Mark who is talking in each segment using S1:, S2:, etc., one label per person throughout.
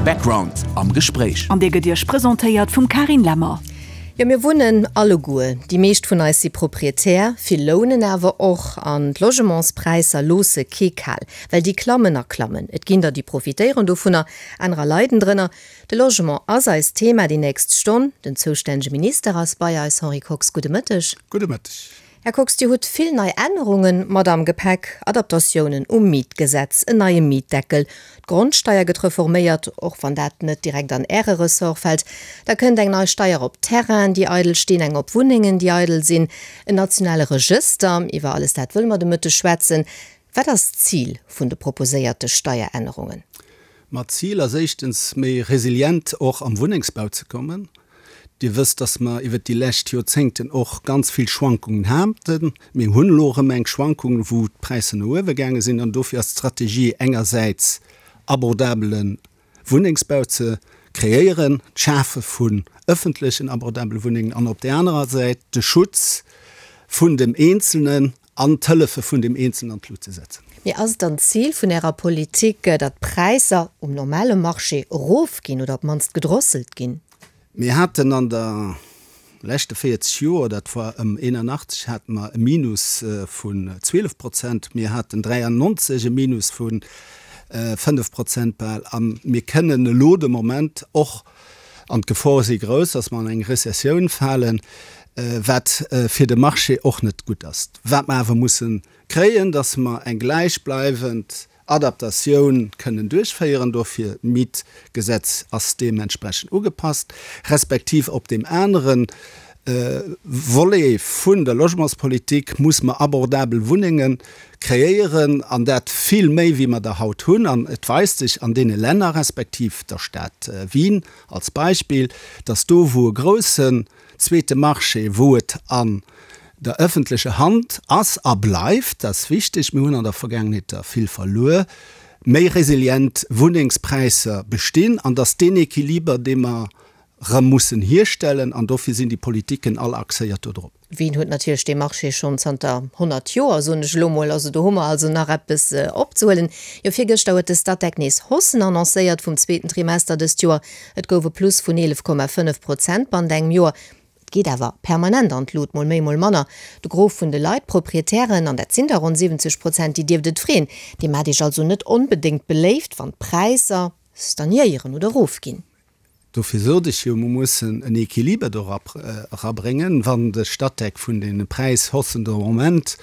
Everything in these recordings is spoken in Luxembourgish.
S1: Background am Gespréich.
S2: An dee gëtt Iech presentéiert vum Carine Lemmer.
S3: Jo, mir wunnen alleguer, déi meescht vun eis si Proprietär, vill lounen awer och. An d'Logementspräisser loosse kee kal, well déi klammen a klammen. Et ginn der, déi profitéieren dovunner, anerer leiden drënner. De Logement ass eist Thema déi nächst Stonn. Den zoustännege Minister ass bei eis, Henri Kox, gudde Mëtteg.
S4: Gudde Mëtteg.
S3: Här Kox, Dir hutt vill nei Ännerunge mat am Gepäck, Adaptatiounen um Mietgesetz, en neie Mietdeckel, d'Grondsteier gëtt reforméiert, och wann dat net direkt an Äre Ressort fält, da kënnt eng nei Steier op Terrainen, déi eidel stinn, eng op Wunnengen, déi eidel sinn, en nationale Regëster. Iwwer alles dat wëlle mer de Mëtteg schwätzen. Wat ass d'Zil vun de proposéierte Steierännerungen?
S4: Ma d'Zil ass éischtens, méi resilient och am Wunnengsbau ze kommen. Dir wësst, dass mer iwwert déi lescht Joerzéngten och ganz vill Schwankungen haten. Mir hunn elo erëm eng Schwankung, wou d'Präisser no uewe gaange sinn. An dofir ass d'Strategie engersäits abordabele Wunnengsbau ze kreéieren, d'Schafe vun ëffentlechen abordabele Wunnengen an op där anerer Säit de Schutz vun dem Eenzelnen an d'Hëllefe vun dem Eenzelnen an d'Lut ze setzen.
S3: Mee ass et dann d'Zil vun Ärer Politik, datt d'Präisser um normale Marché erofginn oder op d'mannst gedrosselt ginn?
S4: Mir haten an der leschte 40 Joer, dat war ëm 81, hate mer e Minus vun 12 Prozent. Mir haten 93 e Minus vu 5 Prozent bal. A mir kënnen elo de Moment och, An d'Gefore si grouss, dass mer an eng Rezessioun falen, wat fir de Marché och net gutt ass. Wat mer awer musse kréien, dass mer eng gläichbleiwend Adaptatioun kënnen duerchféieren. Dofir, d'Mietgesetz ass deementsprechend ugepasst, respektiv op deem anere Volet vun der Logementspolitik muss mer abordabel Wunnenge kreéieren, an dat vill méi wéi mer der haut hunn. An et weist sech an deene Länner, respektiv der Stad Wien als Beispill, dass do wou e groussen zweete Marché, wou et an der öffentlecher Hand ass a bleift, dat ass wichteg, mir hunn an der Vergaangenheet der vill verluer, méi resilient Wunnengspräisser bestinn an dass deen Equiliber, dee mer rëm mussen hierstellen, an dofir sinn déi Politiken all axéiert do drop.
S3: Wien huet natierlech dee Marché schonn zanter 100 Joer, soen ech elo mol. Also do hu mer also nach eppes opzehuelen. Jo, virgëschter huet de Statec nees Haussen annoncéiert vum zweeten Trimester dëst Joer. Et gouf e Plus vun 11,5 Prozent bannent engem Joer. Et geet awer permanent an d'Lut, mol méi, mol manner. De Gros vun de Leit, d'Proprietären, an dat sinn der ronn 70 Prozent, déi dierft et freeën. Dir maacht Iech also net onbedéngt beléift, wann d'Präisser stagnéieren oder erofginn.
S4: Dofir sot ech jo, mer mussen en Equiliber do erabréngen. Wann de Statec vun deene Präishaussen de Moment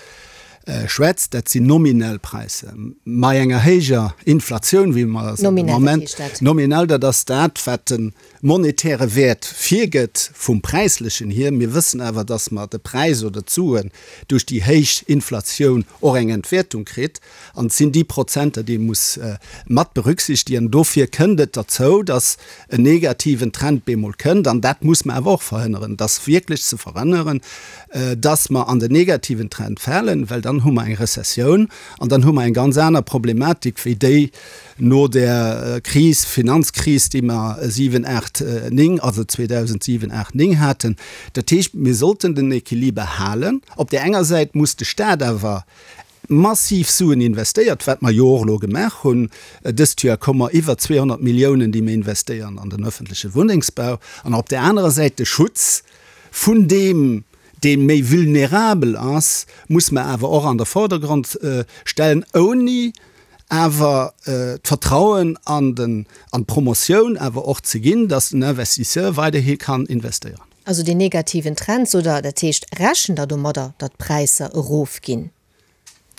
S4: schwätzt, dat sinn nominell Präisser, bei enger héijer Inflatioun, wéi mer se de Moment. Nominell, dat ass dat, wat de monetäre Wäert virgëtt vum Präislechen hier. Mir wëssen awer, dass mer de Präis oder d'Suen duerch déi héich Inflatioun och eng Entwäertung kritt. An et sinn déi Prozenter, déi ee muss mat berücksichtigen. Dofir kënnt et derzou, dass en negativen Trend bemol kënnt. An dat muss mer awer och verhënneren. Et ass wierklech ze verhënneren, dass mer an den negativen Trend falen, well dann hu mer eng Rezessioun an dann hu mer eng ganz aner Problematik wéi déi no där Kris, Finanzkris, déi mer 7, 8, 9, also 2007, 8, 9 haten. Dat heescht, mir sollten den Equiliber halen. Op där enger Säit muss de Stat awer massiv Suen investéiert, wat mer jo och elo gemaach hunn. Dëst Joer komme mer iwwer 200 Milliounen, déi mir investéieren an den öffentleche Wunnengsbau. An op där anerer Säit de Schutz vun deem, dee méi vulnerabel ass, muss mer awer och an de Vordergrond stellen, ouni awer d'Vertrauen an den, an d'Promotioun awer och ze ginn, dass den Investisseur weiderhi kann investéieren.
S3: Also deen negativen Trend, sot Der, dat heescht, rechent Der domadder, datt d'Präisser erofginn,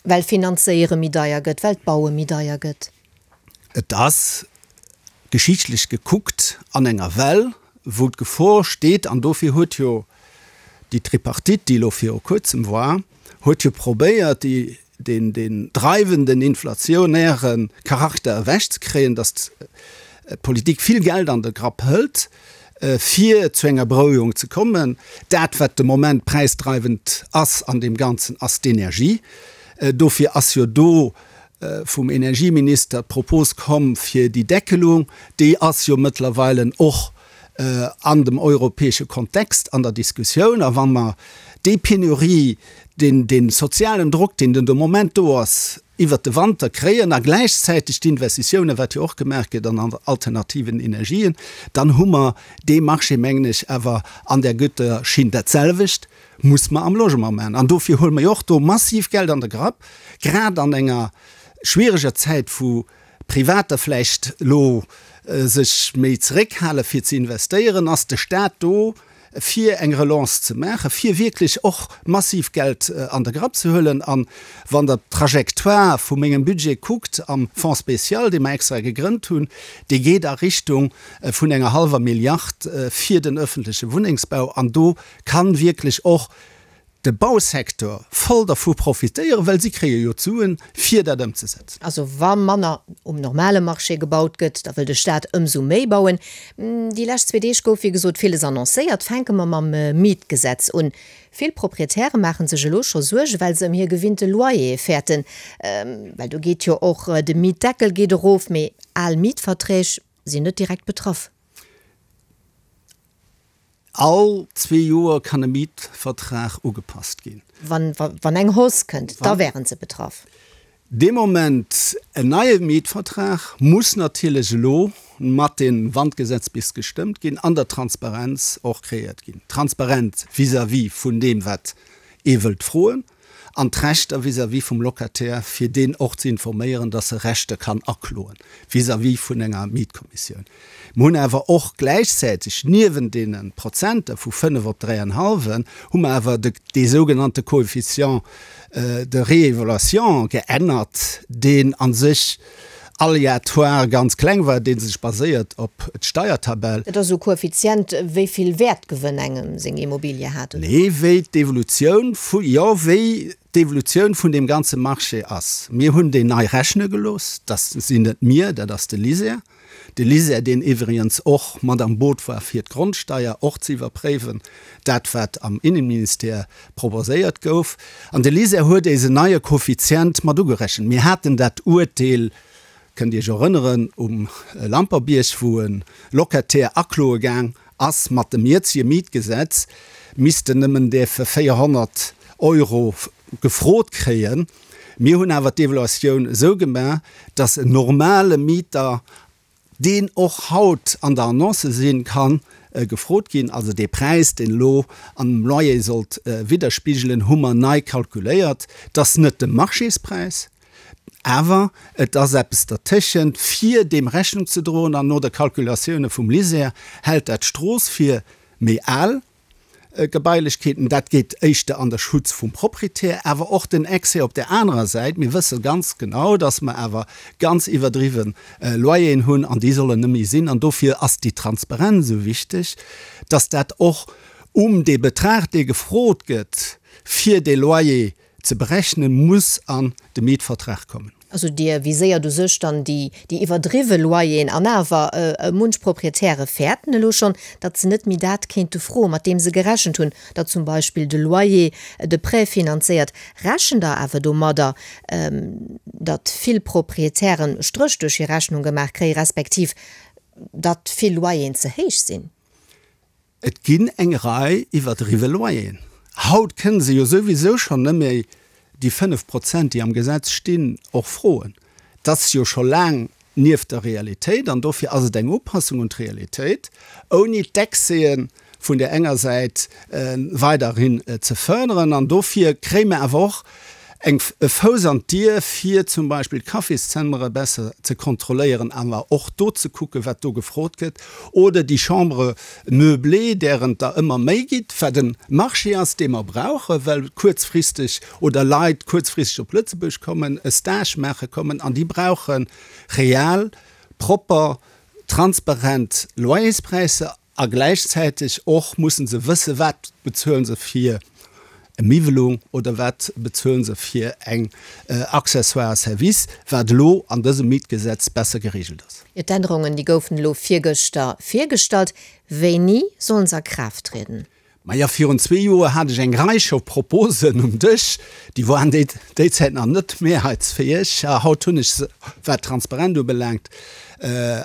S3: well Finanzéiere méi deier gëtt, well d'Baue méi deier gëtt?
S4: Et ass, geschichtlech gekuckt, an enger Well, wou d'Gefor steet, an dofir huet jo déi Tripartite, déi elo viru Kuerzem war, huet jo probéiert, déi, deen, deen dreiwenden inflationäre Charakter ewechzekréien, datt d'Politik vill Geld an de Grapp hëlt, fir zu enger Berouegung ze kommen. Dat, wat de Moment präisdreiwend ass an deem Ganzen, ass d'Energie. Dofir ass jo do vum Energieminister d'Propos komm fir déi Deckelung. Déi ass jo mëttlerweile och an dem europäesche Kontext an der Diskussioun. A wa mer déi Penurie, deen, dee sozialen Drock, deen den de Moment do ass, iwwert de Wanter kréien a gläichzäiteg d'Investitiounen, wat jo och gemaach gëtt an alternativen Energien, dann hu mer dee Marché, mengen ech, awer an där gutter Schinn. Dat selwecht muss mer am Logement maachen. An dofir huele mer jo och do massiv Geld an de Grapp, grad an enger schwiereger Zäit, wou Privater vläicht elo sech méi zeréckhale fir ze investéieren, ass de Staat do, fir eng Relance ze maachen, fir wierklech och massiv Geld an de Grapp ze huelen. A wann Der d'Trajectoire vu mengem Budget kuckt am Fonds spécial, dee mer extra gegrënnt hunn, dee geet a Richtung vun enger hallwer Milliard fir den öffentleche Wunnengsbau. An do kann wierklech och de Bausecteur voll dervu profitéieren, well si kréie jo d'Suen, fir dat ëmzesetzen.
S3: Also wa manner um normale Marché gebaut gëtt, da wëll de Staat ëmsou méi bauen. Déi lescht zwee Deeg gouf wéi gesot villes annoncéiert. Fänke mer mam Mietgesetz un. Vill Proprietäre maache sech elo scho Suerge well se ëm hir gewinnte Loyere fäerten. Well do geet jo och de Mietdeckel geet erof, mee al Mietverträg sinn net direkt betraff.
S4: All zwee Joer kann e Mietvertrag ugepasst ginn.
S3: Wann eng Hausse kënnt, da wären se betraff.
S4: Dee Moment, en neie Mietvertrag muss natierlech elo mat deem, wann d'Gesetz bis gestëmmt ginn, an der Transparenz och kreéiert ginn. Transparent vis-à-vis vun deem, wat ee wëllt froen, an d'Rechter vis-à-vis vum Locataire, fir deen och ze informéieren, dass e Rechter kann akloen vis-à-vis vun enger Mietkommissioun. Mer hunn awer och gläichzäiteg niewent deene Prozenter vu 5 op dräienhallwen, hu mer awer de dee sougenannte Coefficient de réévaluation geännert, deen a sech aléatoire ganz kleng war, dee sech baséiert op d'Steiertabell.
S3: Dat ass esou e Koeffizient, wéi vill Wäertgewënn engem seng Immobilie hat, oder?
S4: Nee, wéi d'Evolutioun vu, jo, wéi d'Evolutioun vun deem ganze Marché ass. Mir hunn deen nei rechne gelooss. Dat sinn net mir, dat ass de LISER. De LISER, deen iwwregens och mat am Boot war, fir d'Grondsteier och ze iwwerpréiwen, dat wat am Innenministère proposéiert gouf. An de LISER huet éis en neie Koeffizient mat ugerechent. Mir haten dat Uerteel, kënnt Iech erënneren, um Lamperbierg, wou e Locataire akloe gaang ass, mat dem jëtzege Mietgesetz misst en nëmmen däerfe 400 Euro gefrot kréien. Mir hunn awer d'Evaluatioun esou gemaach, dass en normale Mieter, deen och haut an der Annonce sinn, ka gefrot ginn. Also dee Präis, deen elo an dem Loyer sollt widderspigelen, hu mer nei kalkuléiert. Et ass net de Marchéspräis, awer et ass eppes dertëschent, fir deem Rechnung ze droen. An no der Kalkulatioune vum LISER hält dat d'Strooss fir méi al. Gebailechkeeten. Dat geet éischter an der Schutz vum Proprietär, awer och den Excès op där anerer Säit. Mir wësse ganz genau, dass mer awer ganz iwwerdriwwe Loyeren hunn an déi sollen net méi sinn. An dofir ass déi Transparenz esou wichteg, dass dat och um dee Betrag, dee gefrot gëtt, fir dee Loyer ze berechnen, muss an de Mietvertrag kommen.
S3: Also Dir viséiert u sech dann déi iwwerdriwwe Loyeren an awer munch Proprietäre fäerten elo schonn, datt se net méi dat kéinte froen, mat deem se gerechent hunn, datt zum Beispill de Loyer de Prêt finanzéiert. Rechent Der awer domadder, datt vill Proprietären Stréch duerch hir Rechnung gemaach kréien, respektiv datt vill Loyeren ze héich sinn?
S4: Et ginn eng Rei iwwerdriwwe Loyeren. Haut kënne se jo souwisou schonn net méi déi 5 Prozent, déi am Gesetz stinn, och froen. Dat ass jo scho laang nieft der Realitéit an dofir ass et eng Upassung un d'Realitéit, ouni d'Excèsen vun där enger Säit weiderhin ze fërderen. An dofir kréie mer awer och eng e Fouss an d'Dier, fir zum Beispill d'Cafészëmmere besser ze kontrolléieren, awer och do ze kucken, wat do gefrot gëtt, oder déi Chambres meublées, dären et der ëmmer méi gitt, wat e Marché ass, dee mer brauchen, well kuerzfristeg oder Leit kuerzfristeg op Lëtzebuerg kommen, e Stage maache kommen, an déi brauche real, propper, transparent Loyerspräisser. A gläichzäiteg och musse se wëssen, wat bezuele se fir e Miwwelung oder wat bezuele se fir eng Accessoire service, wat elo an dësem Mietgesetz besser geregelt ass.
S3: Jo, d'Ännerungen, déi goufen elo virgëschter virgestallt. Wéini sollen se a Kraaft trieden?
S4: Maja, virun zwee Joer hat ech eng Rei scho Proposen um Dësch, déi waren déi déi Zäit nach net mehrheitsfäeg. Haut hunn ech se, wat d'Transparent ubelaangt,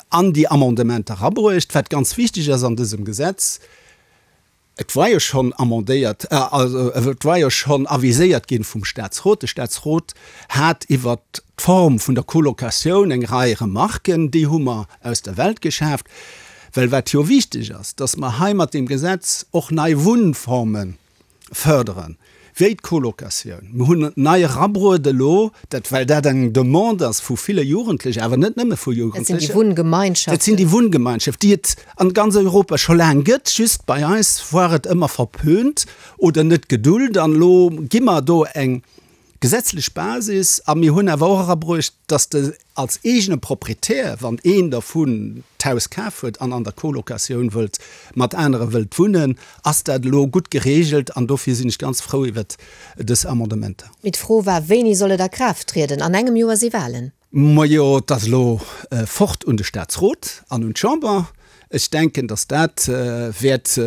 S4: an déi Amendementer erabruecht. Wat ganz wichteg ass an dësem Gesetz. Et war jo schonn amendéiert, also et war jo schonn aviséiert ginn vum Statsrot. De Statsrot hat iwwert d'Form vun der Colocatioun eng Rei Remarken, déi hu mer aus der Welt geschaaft. Well wat jo wichteg ass, dass mer hei mat deem Gesetz och nei Wunnforme fërderen, wéi d'Colocatioun. Mir hunn nei erabruet elo, dat well dat eng Demande ass vu ville Jugendlechen, awer net nëmme vu
S3: Jugendlechen. Dat sinn déi Wunngemeinschaften.
S4: Dat sinn déi Wunngemeinschaften, déi et an ganz Europa scho laang gëtt, just bei eis war et ëmmer verpönt oder net gedult. An elo gi mer do eng gesetzlech Basis a mir hunn awer och erabruecht, dass de als eegene Proprietär, wann een dervun d'Haus kaf huet an an der Colocatioun wëllt mat anere wëllt wunnen, ass dat elo gutt geregelt an dofir sinn ech ganz frou iwwert dës Amendementer.
S3: Mee d'Fro war, Wéini soll et a Kraaft trieden? An engem Joer si Wahlen.
S4: Majo, et ass elo fort un de Statsrot an un d'Chamber. Ech denken, datt dat wäert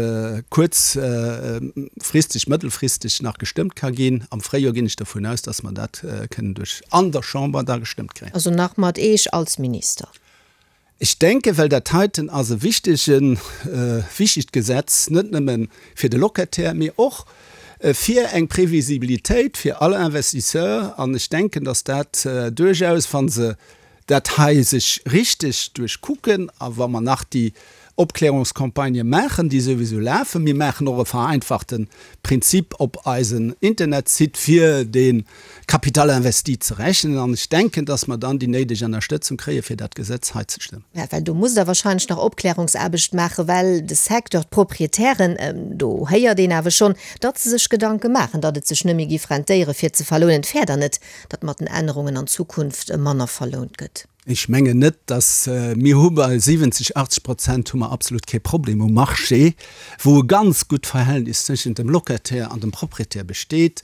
S4: kuerzfristeg, mëttelfristeg nach gestëmmt ka ginn. Am Fréijoer ginn ech dervun aus, datt mer dat kënnen duerch an der Chamber da gestëmmt kréien.
S3: Also nach mat Eech als Minister?
S4: Ech denken, well dat heiten ass e wichtegen, wichtegt Gesetz, net nëmme fir de Locataire, mee och fir eng Previsibilitéit fir all Investisseur. An ech denken, datt dat duerchaus, wa se dat hei sech richteg duerchkucken a wa mer nach déi Opklärungscampagnë maachen, déi souwisou lafen, mir maachen och e vereinfachte Prinzip op eisen Internetsite, fir dee Capital investi ze rechnen an ech denken, dass mer dann déi néideg Ennerstëtzung kréie fir dat Gesetz hei ze stëmmen.
S3: Mä well do musst Der wahrscheinlech nach Opklärungsaarbecht maachen, well de Secteur, d'Proprietären, do héiert een awer schonn, datt se sech Gedanke maachen, datt et sech net méi giff rentéiere fir ze verlounen. Et wär dann net, datt mat den Ännerungen an Zukunft manner verlount gëtt?
S4: Ech mengen net, dass, mir hu bei 70, 80 Prozent hu mer absolut kee Problem um Marché, wou e ganz gutt Verhältnis tëschent dem Locataire an dem Propriétaire besteet,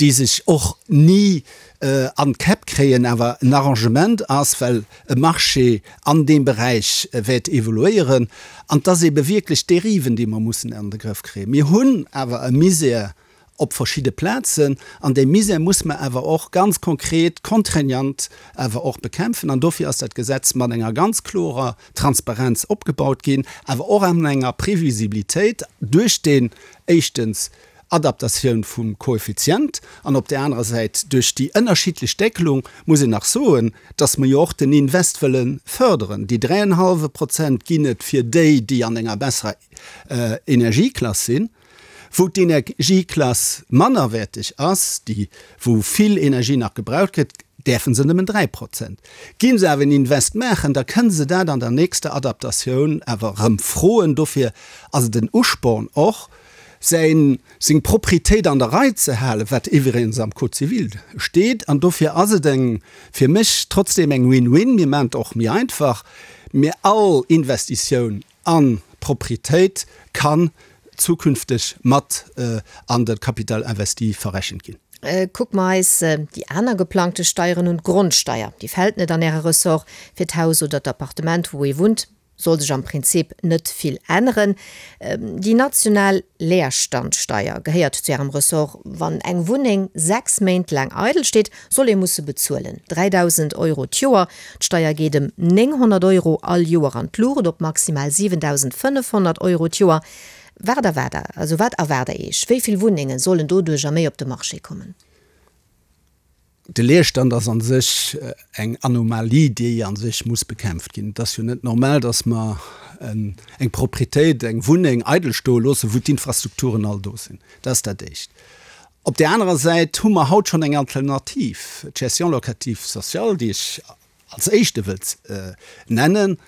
S4: déi sech och ni an d'Käpp kréien, awer en Arrangement ass, well e Marché an deem Beräich wäert evoluéieren. An et ass ebe wierklech d'Dériven, déi mer mussen an de Grëff kréien. Mir hunn awer e Misär op verschidde Plazen, an déi Misär muss mer awer och ganz konkret, contraignant awer och bekämpfen. An dofir ass dat Gesetz mat enger ganz klorer Transparenz opgebaut ginn, awer och an enger Previsibilitéit duerch deen, éischtens, Adaptatioun vum Koeffizient an op där anerer Säit duerch déi ënnerschiddlech Deckelung, muss een nach soen, dass mer jo och den Invest wëlle förderen. Déi dräienhallwe Prozent ginn et fir déi, déi an enger besserer Energieklass sinn. Wou d'Energieklass mannerwäerteg ass, déi wou vill Energie nach gebraucht gëtt, däerfe se nëmmen 3 Prozent. Ginn se awer en Invest maachen, da kënne se dat an der nächster Adaptatioun awer erëm froen. Dofir ass et en Usporn och, säin, seng Proprietéit an der Rei ze halen, wat iwwregens am Code civil steet. An dofir ass et eng, fir mech trotzdeem eng Win-win. Mir maachen et och méi einfach, mir all Investitioun An d'Proprietéit kann zukünfteg mat an de Capital investi verrechent ginn.
S3: Kucke mer eis déi aner geplangte Steieren un. D'Grondsteier, déi fält net an Äre Ressort. Fir d'Haus oder d'Appartement, wou ee wunnt, soll sech am Prinzip net vill änneren. Déi national Leerstandsteier gehéiert zu Ärem Ressort. Wann eng Wunneng 6 Méint laang eidel steet, soll ee musse bezuelen. 3.000 Euro d'Joer. D'Steier geet ëm 900 Euro all Joer an d'Luucht, op maximal 7.500 Euro d'Joer. Wat erwaart Der, also wat erwaart Der Iech? Wéi vill Wunnenge sollen doduercher méi op de Marché kommen?
S4: De Leerstand ass a sech eng Anomalie, déi a sech muss bekämpft ginn. Et ass jo net normal, datt mer eng Proprietéit, eng Wunneng eidel stoe loossen, wou d'Infrastrukturen all do sinn. Dat ass dat Éischt. Op där anerer Säit hu mer haut schonn eng Alternativ, d'Gestion locative sociale, déi ech als éischte wëllt nennen,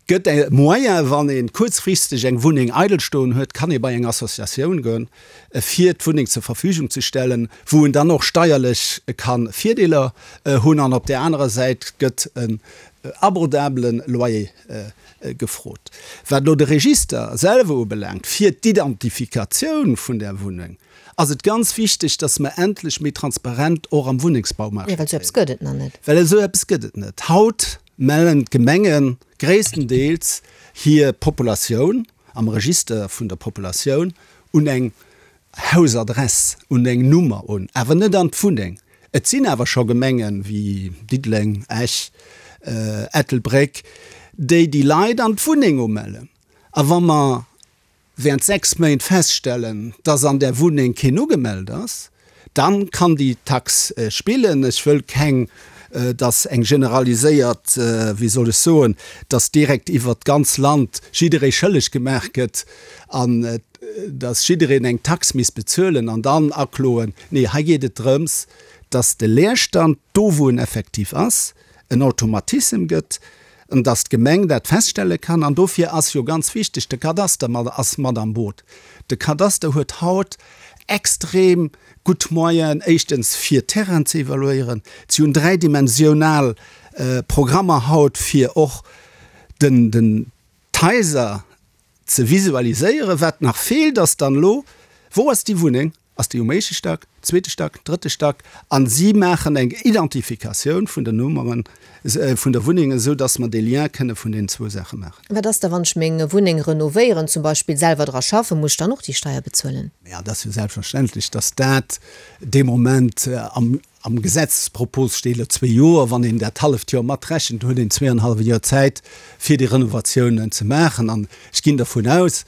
S4: gëtt e Moyen, wann ee kuerzfristeg eng Wunneng eidel stoen huet, kann ee bei eng Associatioun goen, fir d'Wunneng zur Verfügung ze stellen, wou en dann och steierlech ka Virdeeler hunn. An op där anerer Säit gëtt en abordabele Loyer gefrot. Wat elo de Register selwer ubelaangt, fir d'Identifikatioun vun där Wunneng, ass et ganz wichteg, dass mer endlech méi transparent och am Wunnengsbaumarché
S3: Jo, well esou eppes gëtt et nach net.
S4: Well esou eppes gëtt et net. Haut mellen d'Gemenge gréisstendeels hir Populatioun am Register vun der Populatioun un eng Hausadress, un eng Nummer un, awer net an d'Wunneng. Et sinn awer scho Gemengen, wéi Diddeleng, Esch, Ettelbréck, déi déi Leit an d'Wunneng umellen. A wa mer. während 6 Méint feststellen, dass an där Wunneng keen ugemellt ass, dann kann déi Tax spillen. Ech wëll keng, dass eng generaliséiert, wéi soll ech soen, dass direkt iwwert d'ganz Land jidderee schëlleg gemaach gëtt an dass jiddereen eng Tax misst bezuelen an dann akloen. Nee, hei geet et drëms, dass de Leerstand, do wou en effektiv ass, en Automatissem gëtt, an dass d'Gemeng dat feststelle kann. An dofir ass jo ganz wichteg, de Kadaster mat ass mat am Boot. De Kadaster huet haut extrem gutt Moyenen, éischtens fir Terrainen ze evaluéieren. Si hunn dräidimensional Programmer haut, fir och den, den, d'Haiser ze visualiséieren. Wat nach feelt, ass dann elo, Wou ass déi Wunneng? Ass déi um éischte Stack, zweete Stack, drëtte Stack? A si maachen eng Identifikatioun vun den Nummeren vun der Wunneng, esou datt mer dee Lien kënne vun deenen zwou Saache maachen.
S3: Wat ass da, wann ech meng Wunneng renovéieren, zum Beispill selwer dra schaffen? Muss ech dann och déi Steier bezuelen?
S4: Jo, et ass jo selbstverständlech, datt dat dee Moment am Am Gesetzespropos steet elo zwee Joer. Wann een dat halleft Joer matrechent, huet een zweeanenhallwe Joer Zäit, fir déi Renovatiounen ze maachen. An ech ginn dervun aus,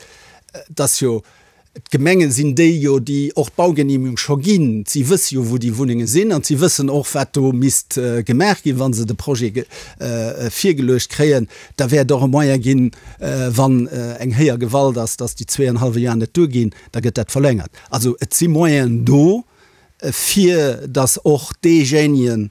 S4: dass jo d'Gemenge sinn déi jo, déi och d'Baugenehmigung scho ginn. Si wësse jo, wou déi Wunnenge sinn an si wëssen och, wat do misst gemaach ginn, wa se de Projet virgeluecht kréien. Da wäert och e Moyen ginn, wann eng héijer Gewalt ass, dass déi zweeanenhallwe Joer net duerginn, da gëtt dat verlängert. Also et si Moyenen do. fir datt och deejéinegen,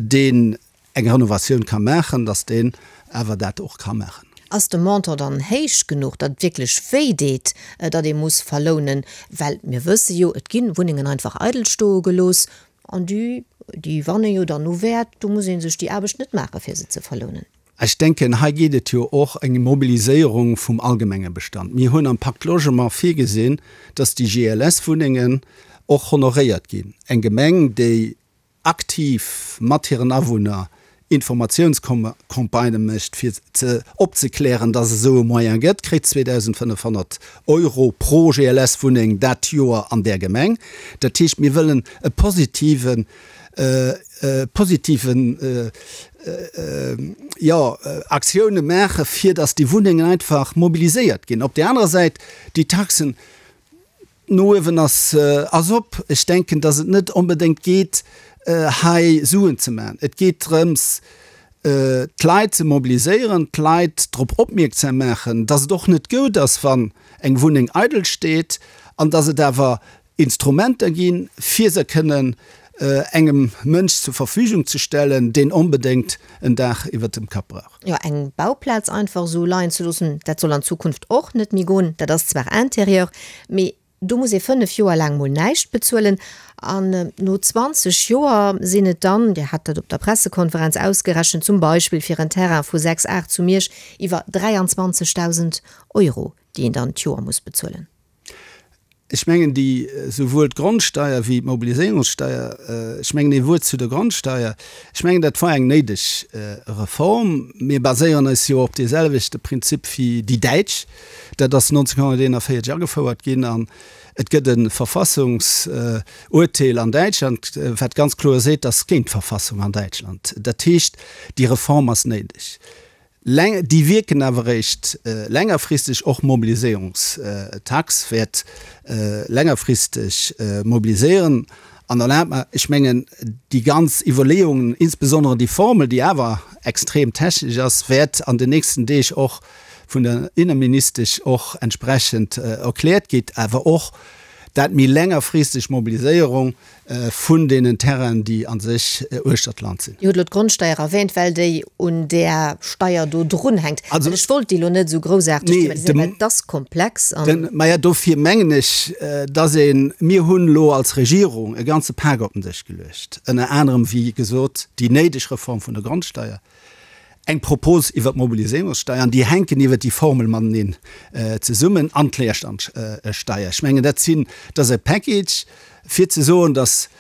S4: deen eng Renovatioun ka maachen, datt deen awer dat och ka maachen.
S3: Ass de Montant dann héich genuch, datt et wierklech wéi deet, datt ee muss verlounen? Well mir wësse jo, et gi Wunnengen einfach eidel stoe gelooss an déi, déi wanne jo dann u Wäert. Do muss ee sech déi Aarbecht net maache fir se ze verlounen.
S4: Ech denken, hei geet et jo och eng Mobiliséierung vum allgemenge Bestand. Mir hunn am Pacte Logement virgesinn, dass déi GLS-Wunnengen och honoréiert ginn. Eng Gemeng, déi aktiv mat hiren Awunner Informatiounscampagnë mécht, fir ze opzeklären, dass et esou e Moyen gëtt, kritt 2.500 Euro pro GLS-Wunneng dat Joer an där Gemeng. Dat heescht, mir wëllen e positiven positiven jo Aktioune maache fir datt déi Wunnengen einfach mobiliséiert ginn. Op där anerer Säit déi Taxen no uewen ass ass op. Ech denken, datt et net onbedéngt geet hei Suen ze maachen. Et geet drëms d'Leit ze mobiliséieren, d'Leit drop opmierksam maachen, datt et och net goud ass wann eng Wunneng eidel steet an datt et awer Instrumenter ginn, fir se kënnen engem Mënsch zur Verfügung ze stellen, deen onbedéngt en Daach iwwert dem Kapp brauch.
S3: Jo, eng Bauplaz einfach esou leien ze loossen, dat soll an Zukunft och net méi goen. Dat ass zwar Interieur, mee do muss ee 5 Joer laang mol näischt bezuelen. An no 20 Joer sinn et dann, Dir hat dat op der Pressekonferenz ausgerechent, zum Beispill fir en Terrain vu 6 Ar zu Miersch iwwer 23.000 Euro, déi een dann d'Joer muss bezuelen.
S4: Ech mengen, déi, souwuel d'Grondsteier wéi d'Mobiliséierungssteier, ech mengen, ee Wuert zu der Grondsteier, ech mengen, dat war eng néideg Reform. Mir baséieren eis jo op deeselwechte Prinzip wéi déi Däitsch. Dat ass 1941 agefouert ginn an et gëtt e Verfassungsurteel an Däitschland, wat ganz kloer seet, dat ass géint d'Verfassung an Däitschland. Dat heescht, déi Reform ass néideg. Déi wierken awer eréischt längerfristeg. Och d'Mobiliséierungstax wäert längerfristeg mobiliséieren. An erlaabt mer, ech mengen, déi ganz Iwwerleeungen, insbesondere déi Formel, déi awer extrem technesch ass, wäert an den nächsten Deeg och vun der Inneministesch och entsprechend erkläert ginn, awer och dat méi längerfristeg Mobiliséierung vun deenen Terrainen, déi a sech uechter d'Land sinn.
S3: Dir hutt elo d'Grondsteier erwähnt, well déi un där Steier do drunhänkt. Also, ech wollt déi elo net esou groussaarteg thematiséieren, well et ass komplex
S4: an. Maja, dofir mengen ech, dass een, mir hunn elo als Regierung e ganze Pak op den Dësch geluecht, ënner anerem, wéi gesot, déi néideg Reform vun der Grondsteier, eng Propos iwwert d'Mobiliséierungssteier, an déi hänken iwwert déi Formel mateneen zesummen, an d'Leerstandsteier. Ech mengen, dat sinn, dat ass e Package, fir ze soen, datt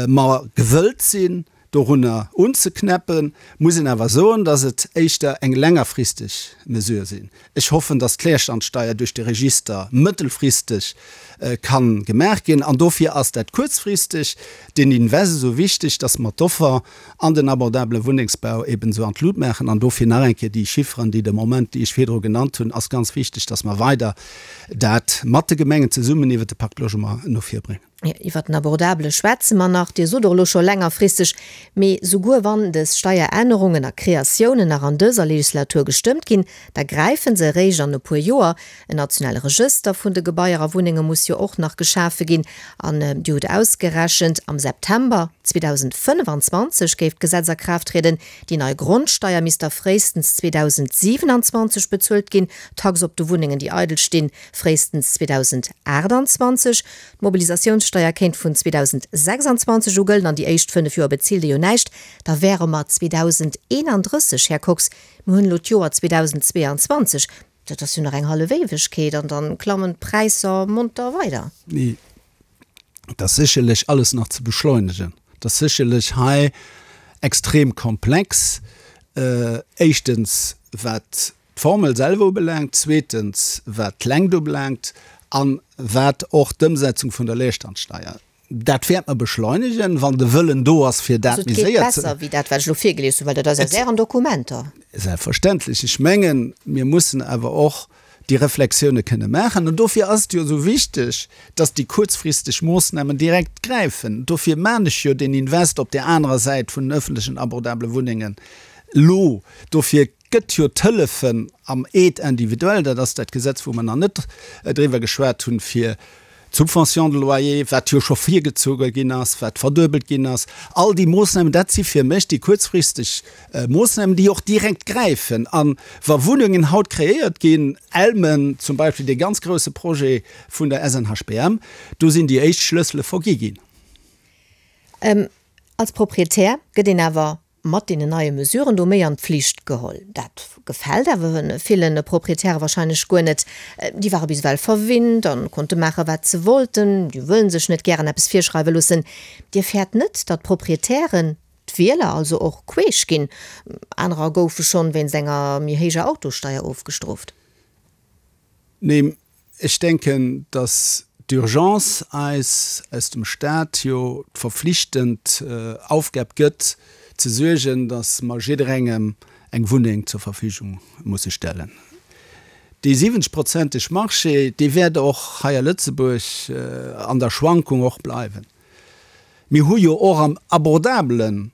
S4: mer gewëllt sinn, Dorunner unzeknäppen, muss een awer soen, dass et éischter eng längerfristeg Mesure sinn. Ech hoffen, dass d'Leerstandsteier duerch de Register mëttelfristeg ka gemaach ginn. An dofir ass dat kuerzfristeg den Invest esou wichteg, dass mer d'Offer an den abordabele Wunnengsbau eben esou an d'Lut maachen. An dofir nach eng Kéier déi Chifferen, déi de Moment, déi ech virdru genannt hunn, ass ganz wichteg, dass mer weider dat mat de Gemengen zesummen iwwert de Pacte Logement no vir bréngen.
S3: Iwwer den Abordabele schwätze mer nach, Dir sot och elo scho längerfristeg, mee souguer wann dës Steierännerungen a Kreatiounen nach an dëser Legislatur gestëmmt ginn, da gräife se eréischt an e puer Joer. En nationale Regëster vun de Gebaier a Wunnenge muss jo och nach geschafe ginn. An Dir hutt ausgerechent, am September 2025 géif d'Gesetz a Kraaft trieden. Déi nei Grondsteier misst da fréistens 2027 bezuelt ginn, d'Tax op de Wunnengen, déi eidel stinn, fréistens 2028. D'Mobilisatiounssteier kéint vun 2026 u gëllen an déi éischt 5 Joer bezilt ee jo näischt. Da wäre mer 2031, Här Kox. Mir hunn elo d'Joer 2022, dat ass jo nach eng hallef Éiwegkeet an da klammen d'Präisser monter weider.
S4: Nee, et ass sécherlech alles nach ze beschleunegen. Et ass sécherlech hei extrem komplex, éischtens wat d'Formel selwer ubelaangt, zweetens wat d'Längt ubelaangt a wat och d'Ëmsetzung vun der Leerstandsteier. Dat wäert mer beschleunegen, wann de Wëllen do ass, fir dat
S3: méi séier ze. Also et geet besser wéi dat, wat ech elo virgelies hunn, well dat ass aus Ären Dokumenter.
S4: Selbstverständlech. Ech mengen, mir mussen awer och déi Reflexioune kënne maachen. An dofir ass et jo esou wichteg, dass déi kuerzfristeg Moossnamen direkt gräifen. Dofir maan ech jo deen Invest op där anerer Säit vun den öffentlechen abordabele Wunnengen elo. Dofir gëtt jo d'Hëllefen am Aide individuelle, dat ass dat Gesetz, wou mer nach net driwwer geschwat hunn, fir d'Subvention de loyer, wat jo scho virgezoge ginn ass, wat verduebelt ginn ass, all déi Moossnamen, dat si fir mech déi kuerzfristeg Moossnamen, déi och direkt gräifen. A wa Wunnengen haut kreéiert ginn, Elmen zum Beispill, dee ganz grouse Projet vun der SNHBM, do sinn déi éischt Schlëssele vergi ginn.
S3: Als Proprietär gëtt een awer mat deenen neie Mesuren do méi an d'Pflicht geholl. Dat gefält awer ville Proprietäre wahrscheinlech guer net. Déi ware bis ewell verwinnt an konnte maache wat se wollten. Déi wëllen sech net gären eppes virschreiwe loossen. Dir fäert net, datt d'Proprietären, d'Wieler also och queesch ginn? Anerer goufe schonn wéinst enger méi héijer Autosteier ofgestrooft.
S4: Nee, Ech denken, dass d'Urgence eis aus dem Stat jo d'verflichtend Aufgab gëtt, ze suergen, dass mer jidderengem eng Wunneng zur Verfügung musse stellen. Dee 70 prozenteg Marché, dee wäert och hei a Lëtzebuerg an der Schwankung och bleiwen. Mir hu jo och am abordabele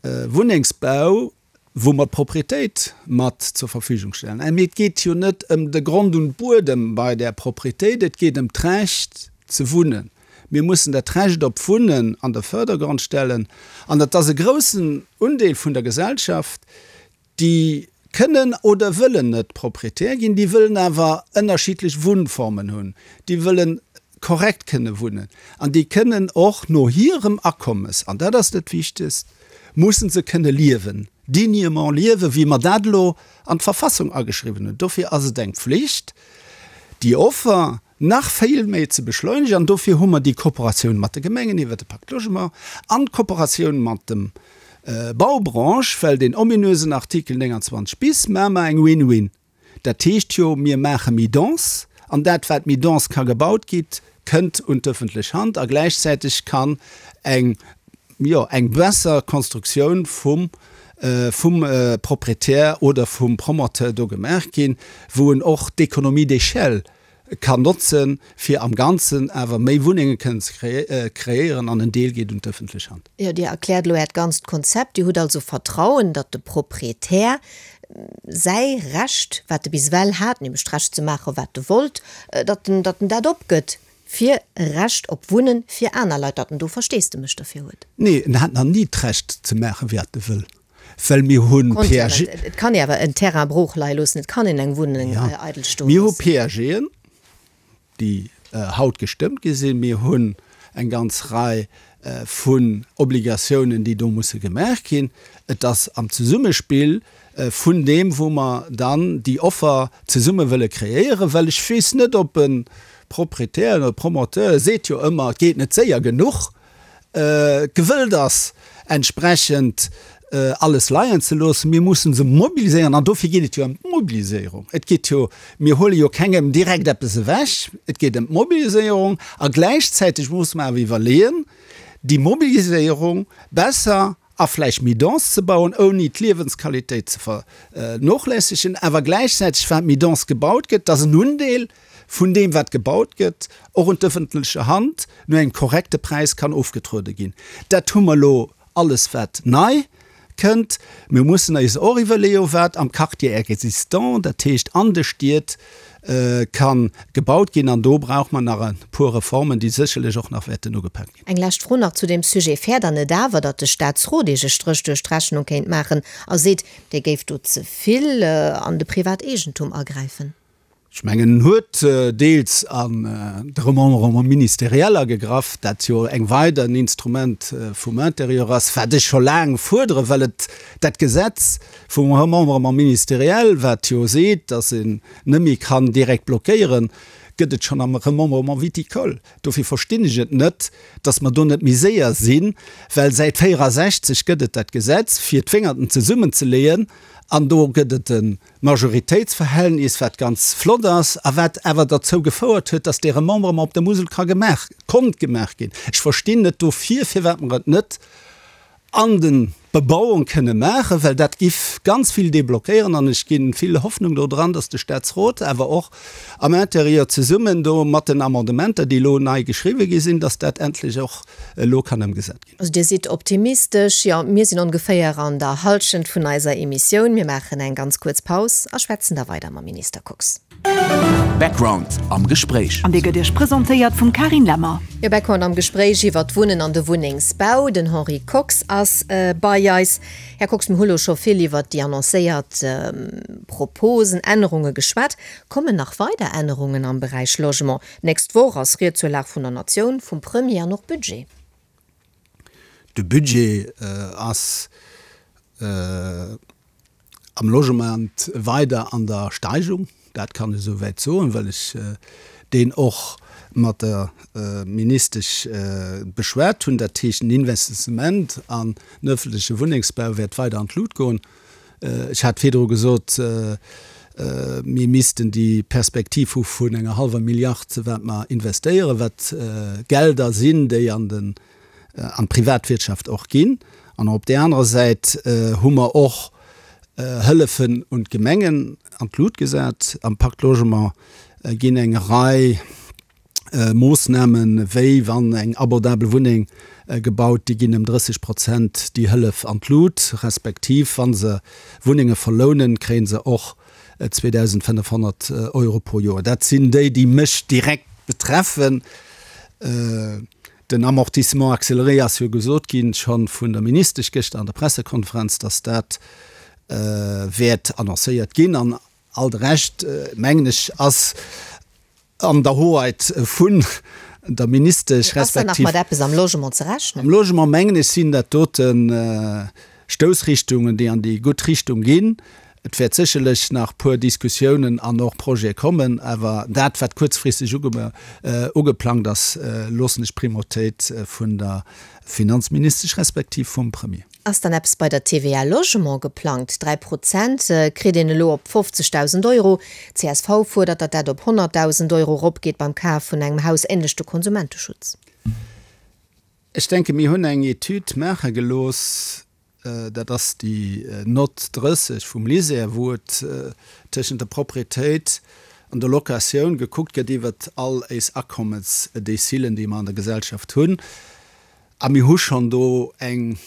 S4: Wunnengsbau wou mer d'Propriétéit mat zur Verfügung stellen. Mee et geet jo net ëm de Grond und Buedem bei där Propriétéit, et geet ëm d'Recht ze wunnen. Mir mussen dat Recht op Wunnen an de Fördergrond stellen an dat ass e groussen Undeel vun der Gesellschaft, déi kënnen oder wëllen net Propriétaire ginn, déi wëllen awer ënnerschiddlech Wunnformen hunn, déi wëllen korrekt kënne wunnen an déi kënnen och no hirem Akommes, an dat ass dat Wichtegst, mussen se kënne liewen, dignement liewen, wéi mer dat elo an d'Verfassung ageschriwwen hunn. Dofir ass et eng Pflicht, déi Offer nach vill méi ze beschleunegen. An dofir hu mer déi Kooperatioun mat de Gemengen iwwert de Pacte Logement an d'Kooperatioun mat dem Baubranche, well deen ominösen Artikel 29 bis maache mer eng Win-win. Dat heescht jo, mir maache méi dense, an dat, wat méi dense ka gebaut gitt, kënnt un d'ëffentlech Hand a gläichzäiteg kann eng, jo, eng besser Konstruktioun vum, vum Proprietär oder vum Promoteur do gemaach ginn, wou en och d'Économie d'échelle kann notzen, fir am Ganzen awer méi Wunnenge kënnen ze kreéieren, an en Deel geet un d'ëffentlech Hand.
S3: Jo, Dir erkläert elo Äert ganzt Konzept. Dir hutt also Vertrauen, datt de Proprietär säi Recht, wat e bis ewell hat, nämlech d'Recht ze maachen, wat e wollt, datt en, datt en dat opgëtt fir e Recht op Wunnen fir aner Leit, datt en do Versteesdemech derfir huet.
S4: Nee, en hat nach ni d'Recht ze maachen, wat e wëll, well mir hu
S3: PAG. Et kann ee awer en Terrain brooch leie loossen, et kann een eng Wunneng eidel stoe loossen.
S4: Mir hu PAGen, déi haut gestëmmt gi sinn. Mir hunn eng ganz Rei vun Obligatiounen, déi do musse gemaach ginn. Et ass am Zesummespill vun deem, wou mer dann déi Offer zesumme wëlle kreéieren, well ech weess net, ob e Proprietär oder e Promoteur, e seet jo ëmmer, et geet net séier genuch, gewëllt ass. entsprechend alles leien ze loossen. Mir mussen se mobiliséieren an dofir geet et jo ëm d'Mobiliséierung. Et geet jo, mir huele jo kengem direkt eppes ewech, et geet ëm d'Mobiliséierung a gläichzäiteg musse mer awer iwwerleeën, déi Mobiliséierung besser a vläicht méi dense ze bauen, ouni d'Liewensqualitéit ze vernochlässegen, awer gläichzäiteg, wat méi dense gebaut gëtt, dass en Undeel vun deem, wat gebaut gëtt, och un d'ëffentleche Hand no engem korrekte Präis kann ofgetruede ginn. Dat hu mer elo alles wat nei kënnt. Mir mussen eis och iwwerleeën, wat am Quartier existant, dat heescht an de Stied, ka gebaut ginn. An do brauche mer nach e puer Reformen, déi sécherlech och nach wäerten ugepak ginn.
S3: Eng lescht Fro nach zu deem Sujet, Fäert Der net awer, datt de Statsrot Iech e Stréch duerch d'Rechnung kéint maachen a seet, Dir géift do ze vill an de Privateegentum agräifen?
S4: Ech mengen, en huet deels an de Remembrement ministériel agegraff, dat jo eng weider en Instrument vum Intérieur ass, wat ech scho laang fuerderen, well et dat Gesetz vum Remembrement ministériel, wat jo seet, dass een net méi kann direkt blockéieren, gëtt et schonn am Remembrement viticole. Dofir verstinn ech et net, dass mer do net méi séier sinn, well säit 64 gëtt et dat Gesetz, fir d'Wéngerten zesummenzeleeën, an do gëtt et e Majoritéitsverhältnis, wat ganz flott ass a wat awer derzou gefouert huet, dass dee Remembrement op der Musel ka gemaach, konnt gemaach ginn. Ech verstinn net dofir, firwat mer et net an de Bebauung kënne maachen, well dat giff ganz vill deblockéieren an ech gi vill Hoffnung do dran, dass de Statsrot awer och am Intérieur zesummen do mat den Amendementer, déi elo nei geschriwwen gi sinn, dass dat endlech och elo kann ëmgesat ginn.
S3: Also Dir sidd optimistesch. Jo, mir sinn ongeféier an der Hallschent vun eiser Emissioun. Mir maachen eng ganz kuerz Paus a schwätzen da weider mam Minister Kox.
S1: Background am Gespréich.
S2: An dee gëtt Iech presentéiert vum Carine Lemmer.
S3: Jo, Background am Gespréich iwwer d'Wunnen an de Wunnengsbau. Den Henri Kox ass bei eis. Här Kox, mir hu lo scho vill iwwer déi annoncéiert Proposen, Ännerunge geschwat. Kommen nach weider Ännerungen am Beräich Logement? D'nächst Woch ass Ried zur Lag vun der Natioun vum Premier an och Budget.
S4: De Budget ass am Logement weider an der Steigung, dat kann ech esouwäit soen, well ech deen och mat der Ministesch beschwat hunn. Dat heescht, den Investissement an den öffentleche Wunnengsbau wäert weider an d'Lut goen. Ech hat virdru gesot, mir missten déi Perspektiv hu vun enger hallwer Milliard, wat mer investéieren, wat Gelder sinn, déi an den, an d'Privatwirtschaft och ginn. An op där anerer Säit hu mer och Hëllefen un d'Gemengen an d'Lut gesat. Am Pacte Logement ginn eng Rei Moossnamen, wéi wann eng abordabel Wunneng gebaut, déi ginn ëm 30 Prozent déi Hëllef an d'Lut, respektiv wa se Wunnenge verlounen, kréie se och 2.500 Euro pro Joer. Dat sinn déi, déi mech direkt betreffen. Den Amortissement accéléré ass jo gesot ginn, scho vun der Ministesch gëschter an der Pressekonferenz, datt dat wäert annoncéiert ginn. An all de Rescht, mengen ech, ass an der Hoheit vun der Ministesch
S3: respektiv. Ass dann nach mat eppes am Logement ze rechnen?
S4: Am Logement, mengen ech, sinn dat dote Stoussrichtungen, déi an déi gutt Richtung ginn. Et wäert sécherlech nach puer Diskussiounen an och Projete kommen, awer dat, wat kuerzfristeg ugeplangt ass, loossen ech d'Primautéit vun der Finanzministesch respektiv vum Premier.
S3: Ass dann eppes bei der TVA Logement geplangt? 3 Prozent kritt een elo op 50.000 Euro. Csv fuerdert, datt dat op 100.000 Euro eropgeet beim Kaf vun engem Haus, änlech de Konsumenteschutz.
S4: Ech denke mir hunn eng Etüd maache gelooss, dat ass déi Nott 30 vum LISER, wou et tëschent der Proprietéit an der Locatioun gekuckt gëtt iwwert all éis Akommesdecilen, déi mer an der Gesellschaft hunn. A mir hu schonn do eng,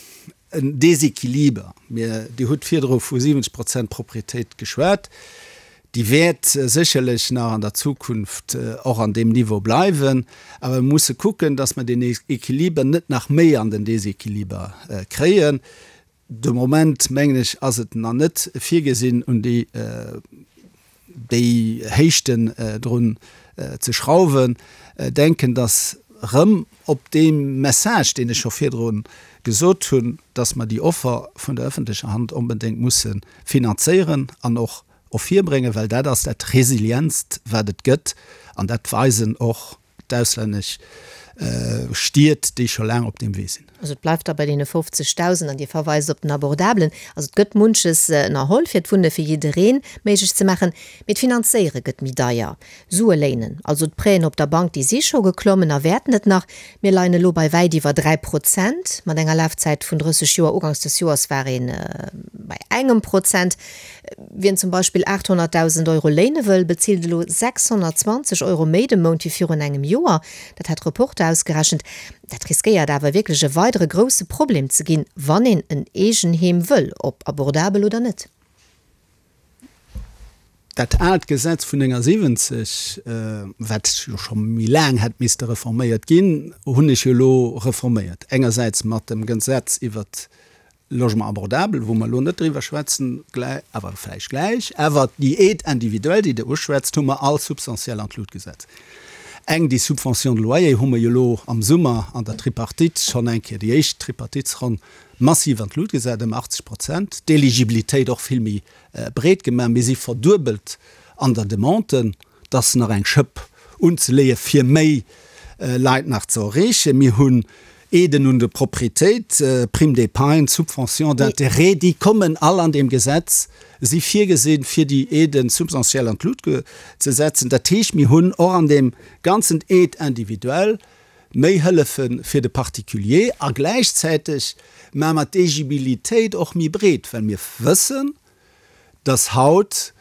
S4: en Déséquiliber. Mir, Dir hutt virdru vu 70 Prozent Proprietéit geschwat. Déi wäert sécherlech nach an der Zukunft och an deem Niveau bleiwen. Awer mir musse kucken, dass mer deen Équiliber net nach méi an den Déséquiliber kréien. De Moment, mengen ech, ass et nach net virgesinn, un déi, déi Héichten drun ze schrauwen. Denken, dass erëm op dee Message, deen ech scho virdru gesot hunn, dass mer déi Offer vun der öffentlecher Hand onbedéngt musse finanzéieren an och ervirbréngen, well dat ass dat Resilientst, wat et gëtt, an dat weisen och d'auslännesch. Stied, déi scho laang op deem Wee sinn.
S3: Also et bleift da bei deene 50.000 an Dir verweist op den Abordabelen. Also et gëtt munches ënnerholl, fir d'Wunne fir jidderee méiglech ze maachen, mee d'Finanzéiere gëtt méi deier. Sue léinen, also d'Prêten op der Bank, déi si scho geklommen a wäerten et nach. Mir leien elo bei wäit iwwer 3 Prozent mat enger Lafzäit vun 30 Joer. Uganks des Joers war ee bei engem Prozent. Wien zum Beispill 800.000 Euro léine wëll, bezilt elo 620 Euro méi de Mount wéi virun engem Joer. Dat hat Reporter ausgerechent. Dat riskéiert awer wierklech e weidere grousse Problem ze ginn, wann een en Eegenheem wëll, ob abordabel oder net.
S4: Dat aalt Gesetz vun 79, wat jo scho méi laang hätt misste reforméiert ginn, hunn ech jo elo reforméiert. Engersäits mat dem Gesetz iwwert Logement abordable, wou mer elo net driwwer schwätzen, awer vläicht gläich, awer déi Aide individuelle, déi Der uschwätzt, hu mer all substantiell an d'Lut gesat. Eng, déi Subvention de loyer hu mer jo elo am Summer an der Tripartite schonn eng Kéier, déi éischt Tripartitsronn, massiv an d'Lut gesat, ëm 80 Prozent, d'Eligibilitéit och vill méi breet gemaach. Mir si verduebelt an der Demande. 't ass nach eng Schëpp unzeleeë fir méi Leit nach ze erreechen. Mir hunn Aiden un de Proprietéit, Prime d'épargne, Subventions d'intérêt, déi kommen all an deem Gesetz, si virgesinn, fir déi Aiden substantiell an d'Lut ze setzen. Dat heescht, mir hunn och an deem ganzen Aide individuelle méi Hëllefe fir de Particulier a gläichzäiteg maache mer d'Éligibilitéit och méi breet, well mir wëssen, dass haut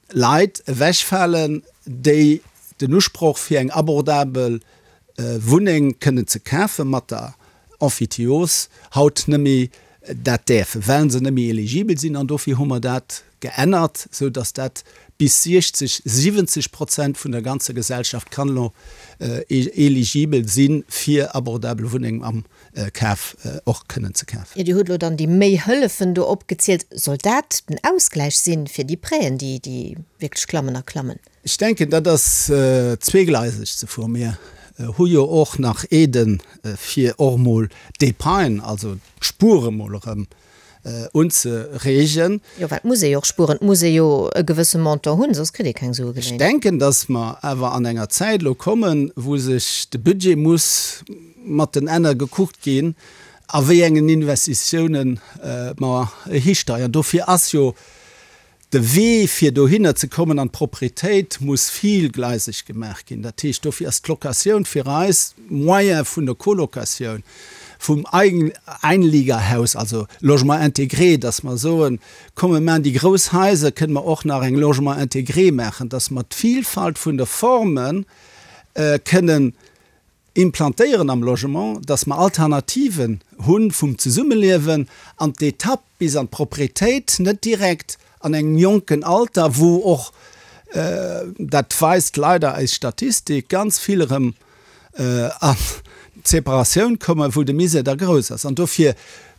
S4: Leit ewechfalen, déi den Usproch fir eng abordabel Wunneng kënnen ze kafe mat der Emphytiose haut nëmme dat däerfen, well se nëmme eligibel sinn. An dofir hu mer dat geännert, esou datt dat bis 60, 70 Prozent vun der ganzer Gesellschaft kann elo eligibel si fir abordabel Wunnengen am Kaf och kënnen ze kafen.
S3: Jo, Dir hutt elo dann déi méi Hëllefen do opgezielt. Soll dat den Ausgläich sinn fir déi Prêten, déi, déi wierklech klammen a klammen?
S4: Ech denken, dat ass zweegleiseg ze fueren. Mir hu jo och nach Aiden, fir och emol d'Épargne, also d'Spuere mol erëm unzereegen.
S3: Jo, well et muss ee jo och spueren, et muss ee jo e gewësse Montant hunn, soss kritt ee keng Sue
S4: Ech geléint. denken, dass mer awer an enger Zäit elo kommen, wou sech de Budget muss mat den Enner gekuckt ginn, a wéi engen Investitiounen mer histeiern. Dofir ass jo De Wee fir dohinner ze kommen an d'Propretéit muss villgleiseg gemaach ginn. Dat heescht, dofir ass d'Locatioun fir eis Moyen vun der Colocatioun, vum Einliegerhaus, also Logement intégré, dass mer soen, komm mir maachen déi grouss Haiser, kënne mer och nach eng Logement intégré maachen, dass mer d'Vilfalt vun de Forme kënnen implantéieren am Logement, dass mer Alternativen hu vum Zesummeliewen an d'Etapp bis an d'Propretéit net direkt an engem jonken Alter, wou och, dat weist leider eis Statistik, ganz vill erëm an d'Separatioun kommen, wou de Misär da grouss ass. An dofir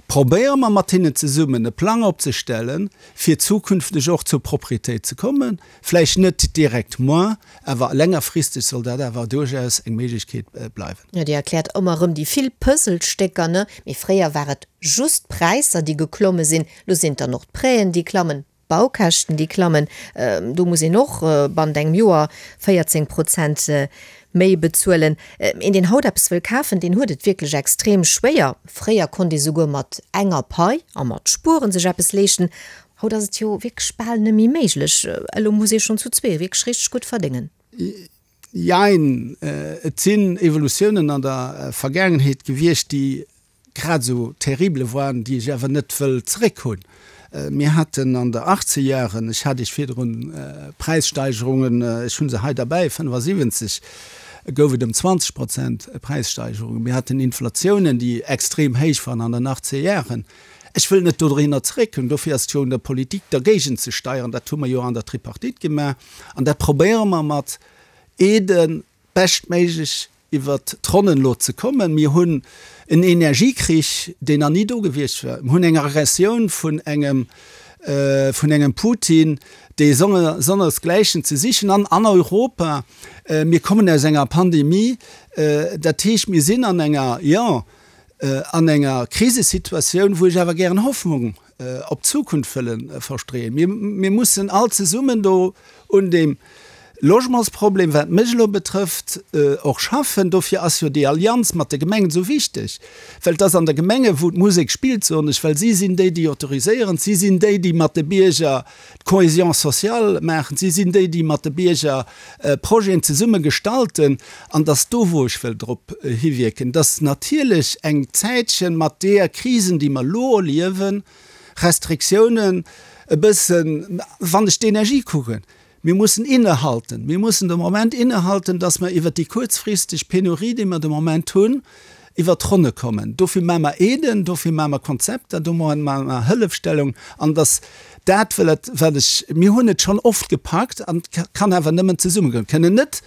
S4: probéiere mer mat hinnen zesummen e Plang opzestellen, fir zukünfteg och zur Propretéit ze kommen. Vläicht net direkt moar, awer längerfristeg soll dat awer duerchaus eng Méiglechkeet bleiwen.
S3: Jo, Dir erkläert ëmmer erëm déi vill Puzzlestécker, ne? Mee fréier war et just d'Präisser, déi geklomme sinn. Lo sinn et dann och d'Prêten, déi klammen, d'Baukäschten, déi klammen. Do muss een och bannent engem Joer 14 Prozent méi bezuelen. Een, deen haut eppes wëll kafen, deen huet et wierklech extrem schwéier. Fréier konnt ee souguer mat enger Pai a mat Spueren sech eppes leeschten. Haut ass et jo wierklech bal net méi méiglech. Elo muss ee schonn zu zwee wierklech richteg gutt verdéngen.
S4: Jein, et sinn Evolutiounen an der Vergaangenheet gewiescht, déi grad esou terrible waren, déi ech awer net wëll zeréck hunn. Mir haten an der Achtzegjaren, ech hat Iech virdrun Präissteigerungen, ech hu se hei derbäi, 75 gouf et ëm 20 Prozent Präissteigerungen. Mir haten Inflatiounen, déi extrem héich waren an den Achtzegjaren. Ech wëll net dohinner zeréckkommen. Dofir ass et jo un der Politik, dergéigent ze steieren. Dat hu mer jo an der Tripartite gemaach an dat probéiere mer mat Aiden beschtméiglech iwwert d'Ronnen elo ze kommen. Mir hunn en Energiekrich, deen nach ni do gewiescht war. Mir hunn eng Aggressioun vun engem, vun engem Putin, dee sonnersgläichen ze sichen an an Europa. Mir kommen aus enger Pandemie. Dat heescht, mir sinn an enger, jo, an enger Krisesituatioun, wou ech awer gären Hoffnung op d'Zukunft wëlle verstreeën. Mir, mir mussen all zesummen do un deem. Logementsproblem, wat mech elo betrëfft, och schaffen. Dofir ass jo déi Allianz mat de Gemengen esou wichteg, well et ass an de Gemenge wou d'Musek spillt, soen ech, well si sinn déi, déi autoriséieren, si sinn déi, déi mat de Bierger d'Cohésion sociale maachen, si sinn déi, déi mat de Bierger Projeten zesumme gestalten. An et ass do, wou ech wëll drop hiwierken, dass natierlech eng Zäitchen mat deeër Krisen, déi mer elo erliewen, Restriktiounen e bëssen, wann ech d'Energie kucken, Mir mussen innehalten. Mir mussen de Moment innehalten, dass mer iwwert déi kuerzfristeg Penurie, déi mer de Moment hunn, iwwert d'Ronne kommen. Dofir maache mer Aiden, dofir maache mer Konzepter, do maache mer Hëllefstellung. An dass dat, well et, wat ech, mir hunn et schonn oft gepackt an et kann awer nëmmen zesumme goen. Kënnen net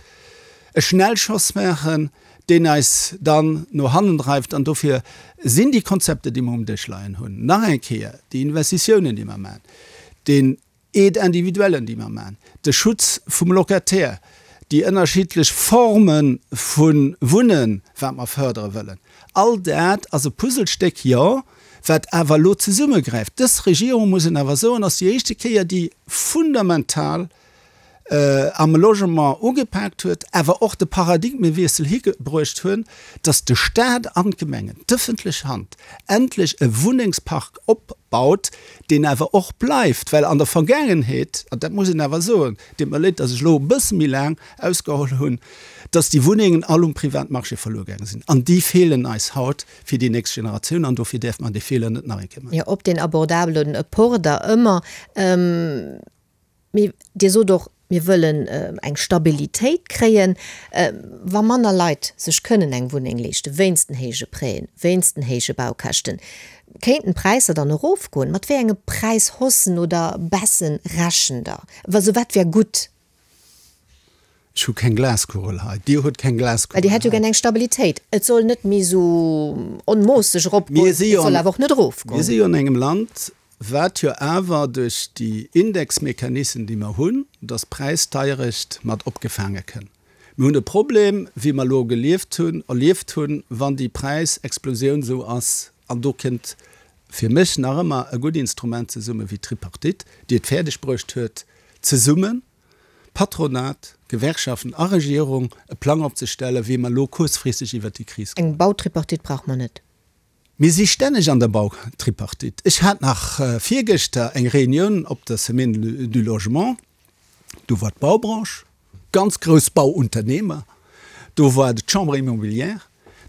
S4: e Schnellschoss maachen, deen eis dann no hannen dreift. An dofir sinn déi Konzepter, déi mer um Dësch leien hunn, nach eng Kéier déi Investitiounen, déi mer maachen, deen Aide individuellen, déi mer maachen, de Schutz vum Locataire, déi ënnerschiddlech Forme vu Wunnen, wat mer fërdere wëllen, all dat ass e Puzzlestéck, jo, wat awer elo zesummegräift. Dës Regierung, muss een awer soen, ass déi éischte Kéier, déi fundamental am Logement ugepaakt huet, awer och de Paradigmewiessel hibruecht hunn, dass de Stat an d'Gemengen, d'ëffentlech Hand, endlech e Wunnengspark opbaut, deen awer och bleift, well an der Vergaangenheet, an dat muss een awer soen, deet mer leed, dass ech elo e bësse méi laang ausgeholl hunn, dass déi Wunnengen all um Privatmarché verluer gaange sinn. An déi feelen eis haut fir déi nächst Generatioun an dofir däerfe mer dee Feeler net nach eng Kéier maachen.
S3: Jo, op deen abordabele Port da ëmmer. Mee Dir sot och, mir wëllen eng Stabilitéit kréien. Wa manner Leit sech kënnen eng Wunneng leeschten, wéinst den héije Prêten, wéinst den héije Baukäschten, kéinten d'Präisser dann erofgoen? Mat wéi enge Präishaussen oder Baissen rechent Der? Also wat wär gutt?
S4: Ech hu keng Glaskugel hei. Dir hutt keng Glaskugel
S3: hei. Well Dir hätt jo gär eng Stabilitéit. Et soll net méi esou onmoosseg eropgoen, et soll awer och net erofgoen.
S4: Mir si jo an engem Land, wat jo awer duerch déi Indexmechanissen, déi mer hunn, dass d'Präisdeierecht mat opgefaange kënn. Mir hunn e Problem, wéi mer elo gelieft hunn, erlieft hunn, wann déi Präisexplosioun esou ass, an do kënnt fir mech nach ëmmer e gutt Instrument zesumme wéi d'Tripartite, déi et fäerdeg bruecht huet, zesummen, Patronat, Gewerkschaften a Regierung e Plang opzestellen, wéi mer elo kuerzfristeg iwwert déi Kris
S3: kommen. Eng Bautripartite brauche mer net.
S4: Mir si stänneg an der Bautripartite. Ech hat nach virgëschter eng Reunioun op der Semaine du Logement. Do war d'Baubranche, ganz grouss Bauunternehmer, do war d'Chambre immobilière,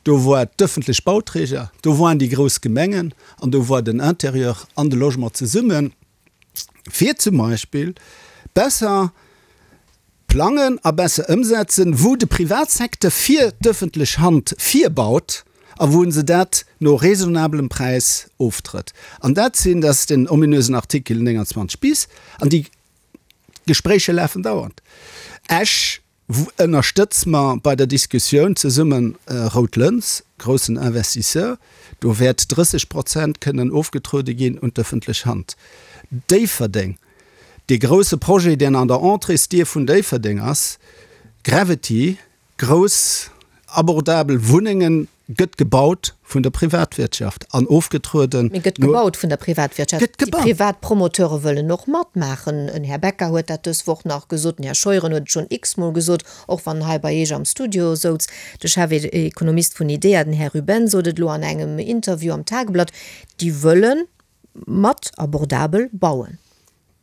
S4: do war d'ëffentlech Bauträger, do waren déi grouss Gemengen an do war den Intérieur an de Logement zesummen. fir zum Beispill besser plangen a besser ëmsetzen, wou de Privatsecteur fir d'ëffentlech Hand virbaut a wou se dat no raisonnabelem Präis oftrëtt. An dat sinn, dat ass den ominösen Artikel 29 bis, an déi Gespréicher lafen dauernd. Esch Ënnerstëtz mer bei der Diskussioun zesumme Rout Lëns, groussen Investisseur, do wäert 30 Prozent kënnen ofgetruede ginn un d'ëffentlech Hand. Déifferdeng, dee grousse Projet, deen an der Entréesdier vun Déifferdeng ass, Gravity, grouss abordabel Wunnengen, Gëtt gebaut vun der Privatwirtschaft an ofgetrueden.
S3: Mee gëtt gebaut vun der Privatwirtschaft. Gëtt gebaut. Déi privat Promoteure wëllen och matmaachen. En Här Becker huet dat dës Woch nach gesot, den Här Scheuren huet et schonn x-mol gesot, och wann en hei bei Iech am Studio souz. De Chefekonomist vun IDEA, den Här Ruben, sot et elo an engem Interview am Tageblatt, déi wëlle mat abordabel bauen.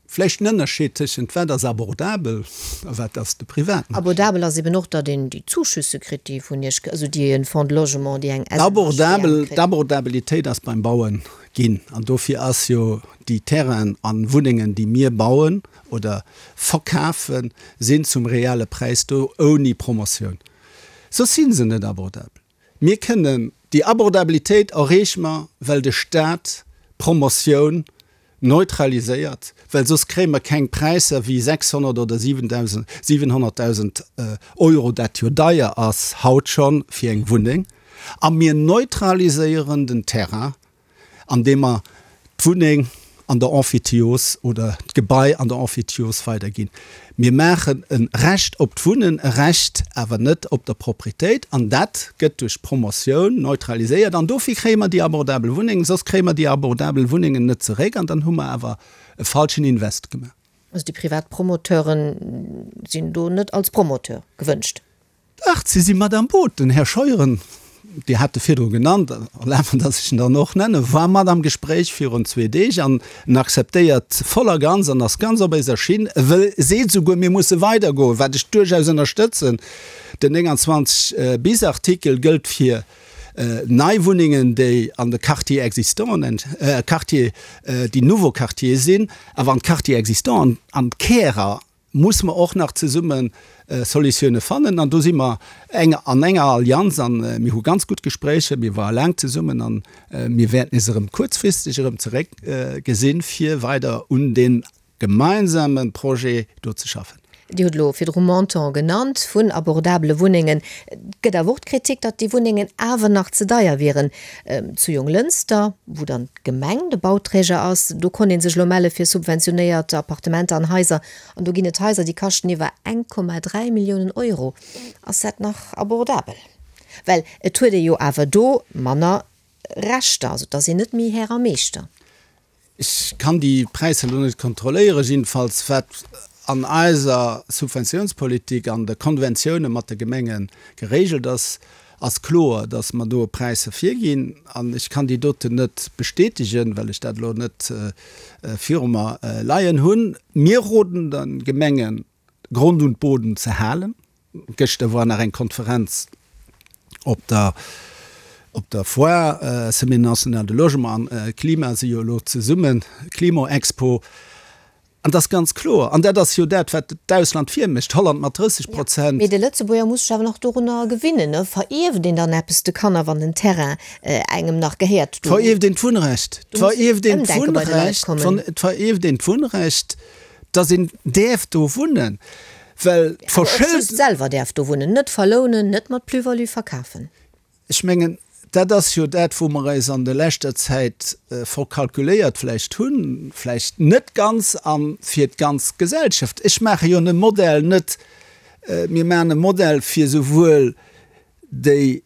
S4: Vläicht en Ënnerscheed tëschent wat ass abordabel a wat ass de Privatmarché.
S3: Abordabel ass eben och, datt een déi Zuschüsse kritt, déi vun Iech, also déi e Fonds de Logement, déi eng
S4: SNHBM kritt. D'Abordabilitéit ass beim Bauen ginn an dofir ass jo déi Terrainen a Wunnengen, déi mir bauen oder verkafen, sinn zum reale Präis do, ouni Promotioun. Soss si se net abordabel. Mir kënnen déi Abordabilitéit erreeche mer, well de Staat d'Promotioun neutraliséiert, well soss kréie mer keng Präisser wéi 600 oder 700.000 Euro, dat jo deier ass haut scho fir eng Wunneng. A mir neutraliséieren den Terrain andeem mer d'Wunneng an der Emphytios oder d'Gebai an der Emphytios weiderginn. Mir maachen e Recht op d'Wunnen, e Recht awer net op der Propriétéit, an dat gëtt duerch d'Promotioun neutraliséiert. An dofir kréie mer déi abordabel Wunnengen, soss kréie mer déi abordabel Wunnengen net zeréck an dann hu mer awer e falschen Invest gemaach.
S3: Also déi privat Promoteure sinn do net als Promoteur gewënscht?
S4: Dach, si si mat am Boot. Den Här Scheuren, Dir hat e virdru genannt, erlaabt mer, datt ech en dann och nennen, war mat am Gespréich virun zwee Deeg an en akzeptéiert voll a ganz an ass ganz op eiser Schinn. E wëll, seet esouguer, mir musse weidergoen, wat ech duerchaus ënnerstëtzen. Den 29 bis Artikel gëllt fir nei Wunnengen, déi an de Quartiers existants, Quartiers, déi nouveaux quartiers sinn, awer an d'Quartiers existants an d'Kärer musse mer och nach zesumme Solutioune fannen. An do si mer eng an enger Allianz an mir hu ganz gutt Gespréicher, mir ware laang zesummen an mir wäerten is erëm kuerzfristeg erëm zeréck gesinn, fir weider un dee gemeinsame Projet do ze schaffen.
S3: Dir hutt elo virdru Montant genannt vun abordabele Wunnengen. Et gëtt awer och d'Kritik, datt déi Wunnengen awer nach ze deier wieren. Zu Jonglënster, wou dann d'Gemeng de Bauträger ass, do konnt ee sech elo melle fir subventionéiert Appartementer an Haiser. An do ginn et Haiser, déi kaschten iwwer 1,3 Milliounen Euro. Ass dat nach abordabel? Well et huet ee jo awer do manner Rechter, also et ass een net méi Här a Meeschter.
S4: Ech kann déi Präisser elo net kontrolléieren. Jiddefalls wat an eiser Subventiounspolitik, an de Konventioune mat de Gemenge geregelt ass, ass kloer, datt mer do Präisser virginn. An ech kann déi doten net bestätegen, well ech dat elo net viru mer leien hunn. Mir roden de Gemengen, Grond und Boden ze halen. Gëschter war nach eng Konferenz op der op der Foire, Semaine nationale de logement an Klima si jo elo zesummen, Klimoexpo. An et ass ganz kloer, an dat ass jo dat, wat d'Ausland virmécht, Holland mat 30 Prozent.
S3: Mee de Lëtzebuerger muss sech awer nach dorunner gewinnen, ne? Verierft een dann eppes de Kanner, wann den Terrain engem nach gehéiert?
S4: Do Verierft een d'Wunnrecht? Verierft een d'Wunnrecht? Verierft een d'Wunnrecht? Dass een däerf do wunnen, well
S3: d'Verschëldung. Just selwer däerf do wunnen, net verlounen, net mat Plus-value verkafen.
S4: Ech mengen, dat ass jo dat, wou mer eis an der leschter Zäit verkalkuléiert vläicht hunn, vläicht net ganz a fir d'ganz Gesellschaft. Ech maache jo e Modell net, mir maachen e Modell fir souwuel déi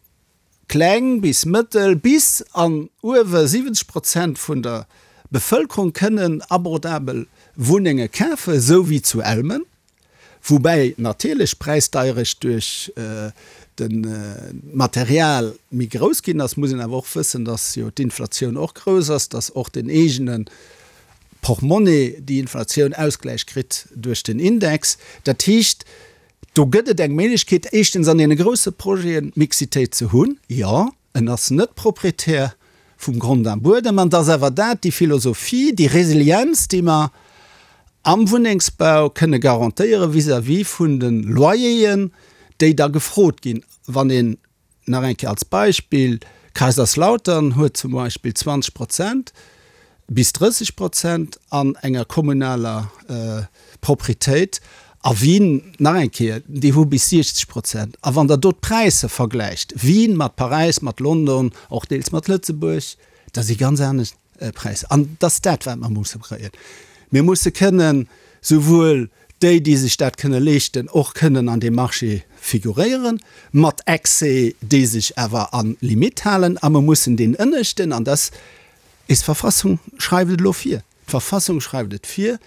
S4: Kleng bis mëttel, bis an uewe 70 Prozent vun der Bevëlkerung kënnen abordabel Wunnenge kafen, esou wéi zu Elmen, woubäi natierlech d'Präisdeierecht duerch de Material méi grouss ginn ass. Muss een awer och wëssen, datt jo d'Inflatioun och grouss ass, datt och den eegene Portmonnaie déi Inflatioun Ausgläich kritt duerch den Index. Dat heescht, Do gëtt et eng Méiglechkeet, éischtens an deene grousse Projeten d'Mixitéit ze hunn. Jo, en ass net Proprietär vum Grond a Buedem. An et ass awer dat, déi Philosophie, déi Resilienz, déi mer am Wunnengsbau kënne garantéiere vis-à-vis vun de Loyeren, déi da gefrot ginn. Wann een Nach eng Kéier als Beispill, Kaiserslautern huet zum Beispill 20 Prozent bis 30 Prozent an enger kommunaler Proprietéit a Wien, nach eng Kéier, déi hu bis 60 Prozent. A wann Der do d'Präisser vergläicht, Wien mat Paräis, mat London, och deels mat Lëtzebuerg, da si ganz anescht Präisser. An et ass dat, wat mer musse kréien. Mir musse kënnen souwuel déi, déi sech dat kënne leeschten, och kënnen an deem Marché figuréieren, mat Excès, déi sech awer a Limite halen. A mer mussen deen ënneschten, an dass is d'Verfassung schreift et elo vir, d'Verfassung schreift et vir,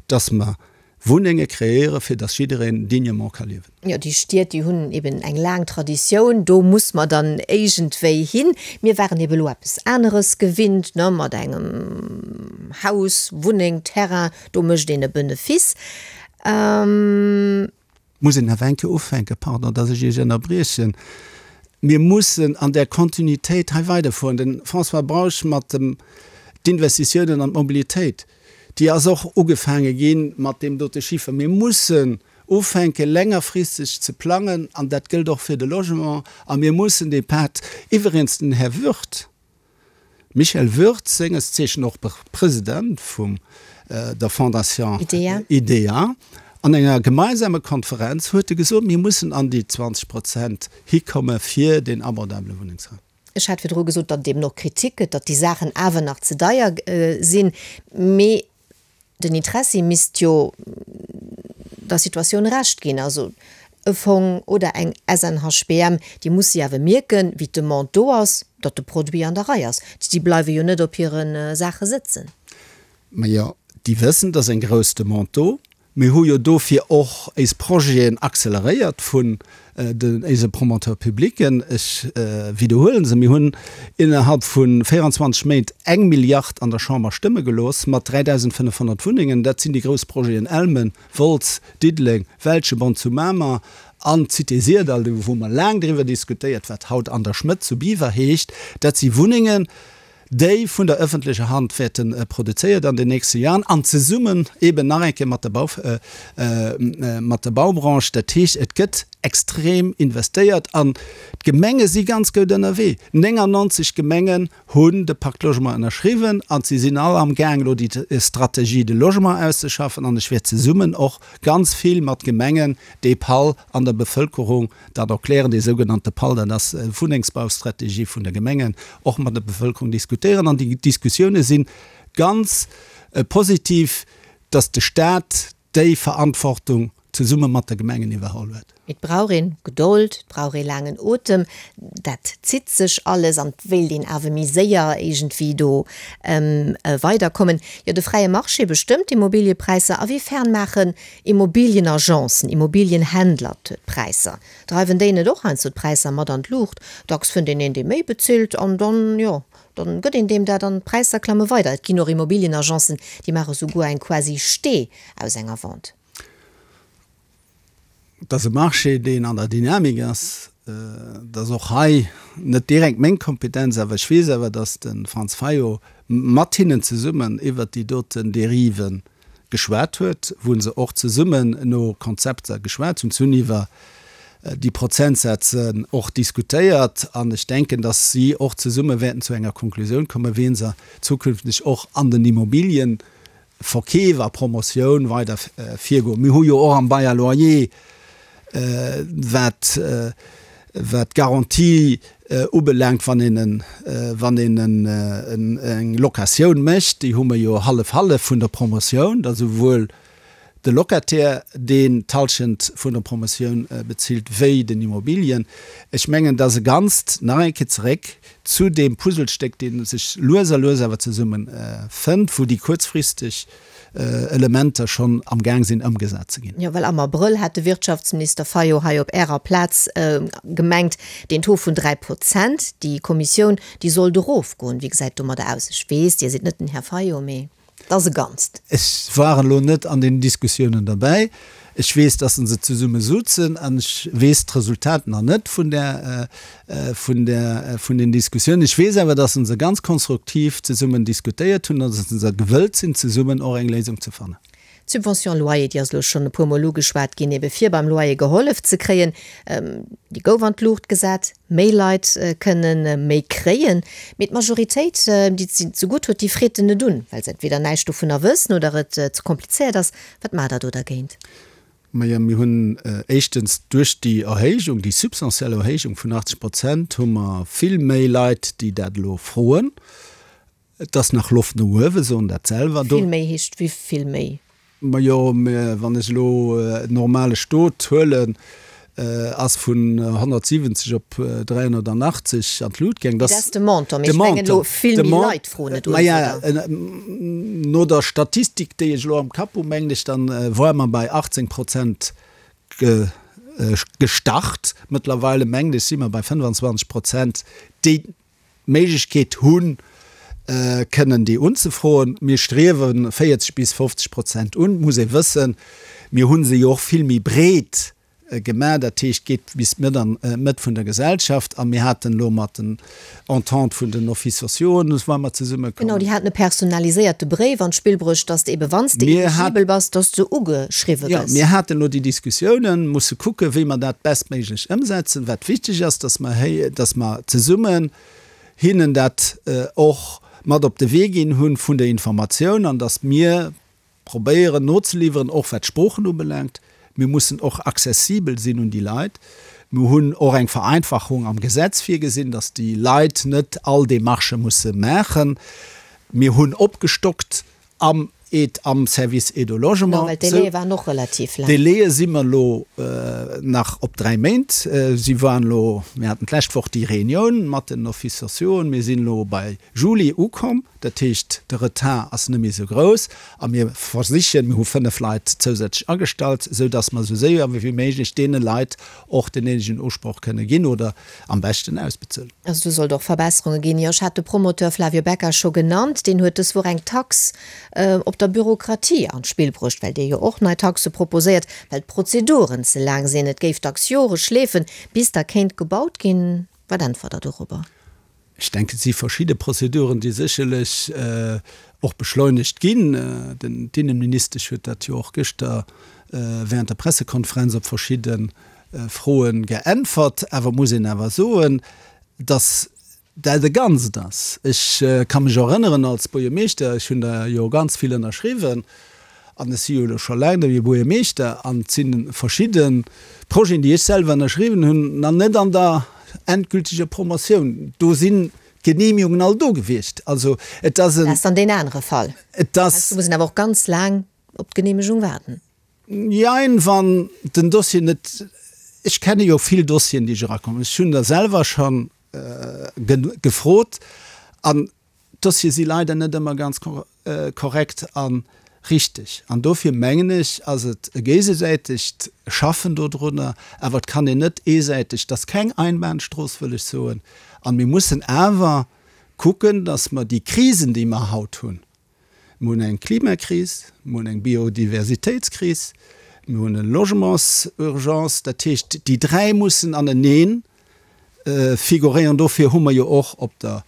S4: dass mer Wunnenge kreéieren, fir dass jiddereen dignement ka liewen.
S3: Jo, déi Stied, déi hunn eben eng laang Traditioun, do muss mer dann éigendwéi hin. Mir waren ebe lo eppes aneres gewinnt, ne, mat engem Haus, Wunneng, Terrain, do mécht een e Benefice.
S4: Muss een awer eng Kéier ufänken, pardon, dass ech Iech ënnerbriechen, mir mussen an där Kontinuitéit hei weiderfueren. De François Bausch mat dem d'Investitiounen an d'Mobilitéit, déi ass och ugefaange gi mat deem dote Chiffer. Mir mussen ufänke längerfristeg ze plangen, an dat gëllt och fir de Logement, a mir mussen dee Pad, iwweregens den Här Würth, Michel Würth, senges Zeechen och President vum der Fondation IDEA, an enger gemeinsamer Konferenz huet e gesot, mir mussen an déi 20 Prozent hikomme fir deen abordabele Wunnengsraum.
S3: Ech hat virdru gesot, datt et eben och Kritik gëtt, datt déi Saachen awer nach ze deier sinn. Mee den Interessi misst jo der Situatioun Recht ginn. Also e Fong oder eng SNHBM, déi musse jo awer mierken, wéi d'Demande do ass, datt de Produit an der Rei ass. Déi bleiwe jo net op hire Saache sëtzen.
S4: Majo, déi wëssen, et ass eng grouss Demande do. Mir hu jo dofir och éis Projeten acceleréiert vun den éise Promoteurs publics. Ech widderhuelen se, Mir hunn innerhalb vu 24 Méint eng Milliard an der Chamber stëmme gelooss mat 3.500 Wunnengen. Dat sinn déi grouss Projeten Elmen, Wolz, Diddeleng, Welschebond zu Mamer an d'Cité Syrdall, do wou mer laang driwwer diskutéiert, wat haut An der Schmëtt zu Biwer heescht. Dat si Wunnengen, déi vun der öffentlecher Hand wäerte produzéiert an den nächste Jahren an zesummen eben nach eng Kéier mat der Bau, mat der Baubranche. Dat heescht, et gëtt extrem investéiert an d'Gemenge si ganz goud ënnerwee. 99 Gemengen hunn de Pacte Logement ënnerschriwwen an si sinn all amgaang elo déi Stratégie de logement auszeschaffen an ech wäert zesummen och ganz vill mat Gemengen dee PAL an der Bevëlkerung Dat erklären, dee sougenannte PAL, dat ass Wunnengsbaustrategie vun de Gemengen, och mat der Bevëlkerung diskutéieren. An déi Diskussioune si ganz positiv, datt de Staat déi Verantwortung zesumme mat de Gemengen iwwerholl huet.
S3: Et brauch een Gedold, et brauch ee laangen Otem, dat zitt sech alles an et wéilt een awer méi séier iergendwéi do weiderkommen. Jo, de fräie Marché bestëmmt d'Immobiliëpräisser. A wéi fern maachen Immobilienagencen, Immobilienhändler d'Präisser? Dreiwen déi net och heiansdo d'Präisser mat an d'Luucht? Dacks fënnt een een, dee méi bezilt an dann, jo, dann gëtt een deem dat an d'Präisser klamme weider. Et ginn och Immobilienagencen, déi maache souguer eng quasi Stee aus enger Vente.
S4: Et ass e Marché, deen an der Dynamik ass. Et ass och hei net direkt meng Kompetenz, awer ech weess awer, datt de Franz Fayot mat hinnen zesummen iwwert déi doten Dérive geschwat huet, wou se och zesummen no Konzepter geschwat hunn. Se hunn iwwer déi Prozentsätze och diskutéiert an ech denken, datt si och zesumme wäerten zu enger Konklusioun kommen, wéi se zukünfteg och an den Immobilien Verkeef a Promotioun weider virgoen. Mir hu jo och am Bail à loyer, wat wat d'Garantie ubelaangt, wann een en, wann een en eng Locatioun mécht, déi hu mer jo hallef-hallef vun der Promotioun, da souwuel de Locataire, deen d'Halschent vun der Promotioun bezilt, wéi den Immobilien. Ech mengen, dass e Ganzt, nach eng Kéier zeréck zu deem Puzzlestéck, dee sech lues a lues awer zesumme fënnt, wou déi kuerzfristeg Elementer schonn am Gaang sinn ëmgesat ze ginn.
S3: Jo, well am Abrëll hat de Wirtschaftsminister Fayot hei op Ärer Plaz gemengt, deen Taux vun 3 Prozent, déi Kommissioun, déi sollt erofgoen. Wéi gesäit et domadder aus? Ech weess, Dir sidd net den Här Fayot, mee et ass e Ganzt.
S4: Ech war elo net an den Diskussiounen derbäi. Ech weess, dass se zesumme suzen an ech weess d'Resultat nach net vun där, vun där, vun den Diskussiounen. Ech weess awer, dass se ganz konstruktiv zesummen diskutéiert hunn an dass se gewëllt sinn, zesummen och eng Léisung ze fannen.
S3: D'Subvention loyer, déi ass elo schonn e puermol ugeschwat ginn, ebe fir beim Loyer gehollef ze kréien, déi gouf an d'Luucht gesat. Méi Leit kënne méi kréien, mee d'Majoritéit, déi et zegutt huet, déi freet en net un, well se entweder näischt dovunner wëssen oder et ze komplizéiert ass. Wat maacht Der do dergéint?
S4: Majo, mir hunn éischtens duerch déi Erhéijung, déi substantiell Erhéijung vun 80 Prozent, hu mer vill méi Leit, déi dat elo froen. Et ass nach Loft no uewen, soen dat selwer.
S3: Vill méi heescht wéi vill méi?
S4: Majo, mä wann ech elo en normale Stot huelen, ass vun 170 op 380 an d'Lut gaang.
S3: Dat ass de Montant, mee ech mengen elo vill méi Leit froen et un,
S4: oder? No der Statistik, déi ech elo am Kapp hu, mengen ech, dann woare mer bei 18 Prozent gestart. Mëttlerweile mengen ech si mer bei 25 Prozent, déi d'Méiglechkeet hunn, kënnen déi unzefroen. Mir striewe 40 bis 50 Prozent un. Et muss ee wëssen, mir hu se jo och vill méi breet gemaach, dat heescht, geet bis d'Mëtt an d'Mëtt vun der Gesellschaft. A mir haten elo mat den Entente vun den Offices sociaux, wou mer zesummekommen.
S3: Genau, déi haten e personaliséierte Bréif an d'Spill bruecht, dass de ebe wann s de eligibel bass, dass de ugeschriwwe
S4: gëss. Jo, mir haten elo déi Diskussiounen, musse kucken, wéi mer dat bestméiglech ëmsetzen. Wat wichteg ass, dass mer héi, dass mer zesummen hinnen dat och mat op de Wee ginn hunn vun der Informatioun an dass mir probéieren nozeliwweren, och wat d'Sproochen ubelaangt. Mir mussen och accessibel sinn un déi Leit. Mir hunn och eng Vereinfachung am Gesetz virgesinn, dass déi Leit net all Démarchë musse maachen. Mir hunn opgestockt am. Aide am Service Aide au Logement.
S3: No, well d'Délaië waren och relativ laang.
S4: D'Délaië si mer elo nach op 3 Méint. Si waren elo, mir haten d'lescht Woch déi Reunioun mat den Offices sociauxen, mir sinn elo bei Juli ukomm. Dat heescht, de Retard ass net méi esou grouss a mir versichen, mir hu 5 Leit zousätzlech agestallt, esou datt mer esou séier wéi méiglech deene Leit och den néidegen Usproch kënne ginn oder am beschten ausbezuelen.
S3: Also do sollt och Verbesserunge ginn. Jo, ech hat de Promoteur Flavio Becca scho genannt. Deen huet dës Woch eng Tax op der Bürokratie an d'Spill bruecht, well dee jo och nei Taxe proposéiert, well d'Prozeduren ze laang sinn. Et géif dacks Jore schleefen, bis da kéint gebaut ginn. Wat äntwert Der dorobber?
S4: Ech denken, et si verschidde Prozeduren, déi sécherlech och beschleunegt ginn. Den d'Innenministesch huet dat jo och gëschter während der Pressekonferenz op verschidde Froe geäntwert. Awer muss een awer soen, dass dat e Ganzt ass. Ech ka mech erënneren als Buergermeeschter, ech hunn der jo ganz vill ënnerschriwwen, An ech si jo elo scho laang net méi Buergermeeschter, an et si verschidde Projeten, déi ech selwer ënnerschriwwen hunn, nach net an der endgültiger Promotioun. Do sinn d'Genehmigungen all do gewiescht. Also et ass
S3: en. Dat ass dann deen anere Fall.
S4: Et ass.
S3: Do muss een awer och ganz laang op d'Genehmegung waarden.
S4: Jein, wann den Dossier net, ech kenne jo vill Dossieren, déi ech erakommen, ech hunn der selwer scho gefrot, an D'Dossiere si leider net ëmmer ganz korrekt a richteg. An dofir mengen ech, ass et e géigesäitegt Schaffen dodrunner. Awer et kann een net eesäiteg, et ass keng Einbahnstrooss, wëll ech soen. An mir mussen awer kucken, dass mer déi Krisen, déi mer haut hunn, Mir hunn eng Klimakris, mir hunn eng Biodiversitéitskris, mir hunn e Logementsurgence. Dat heescht, déi dräi mussen anenee figuréieren. Dofir hu mer jo och op der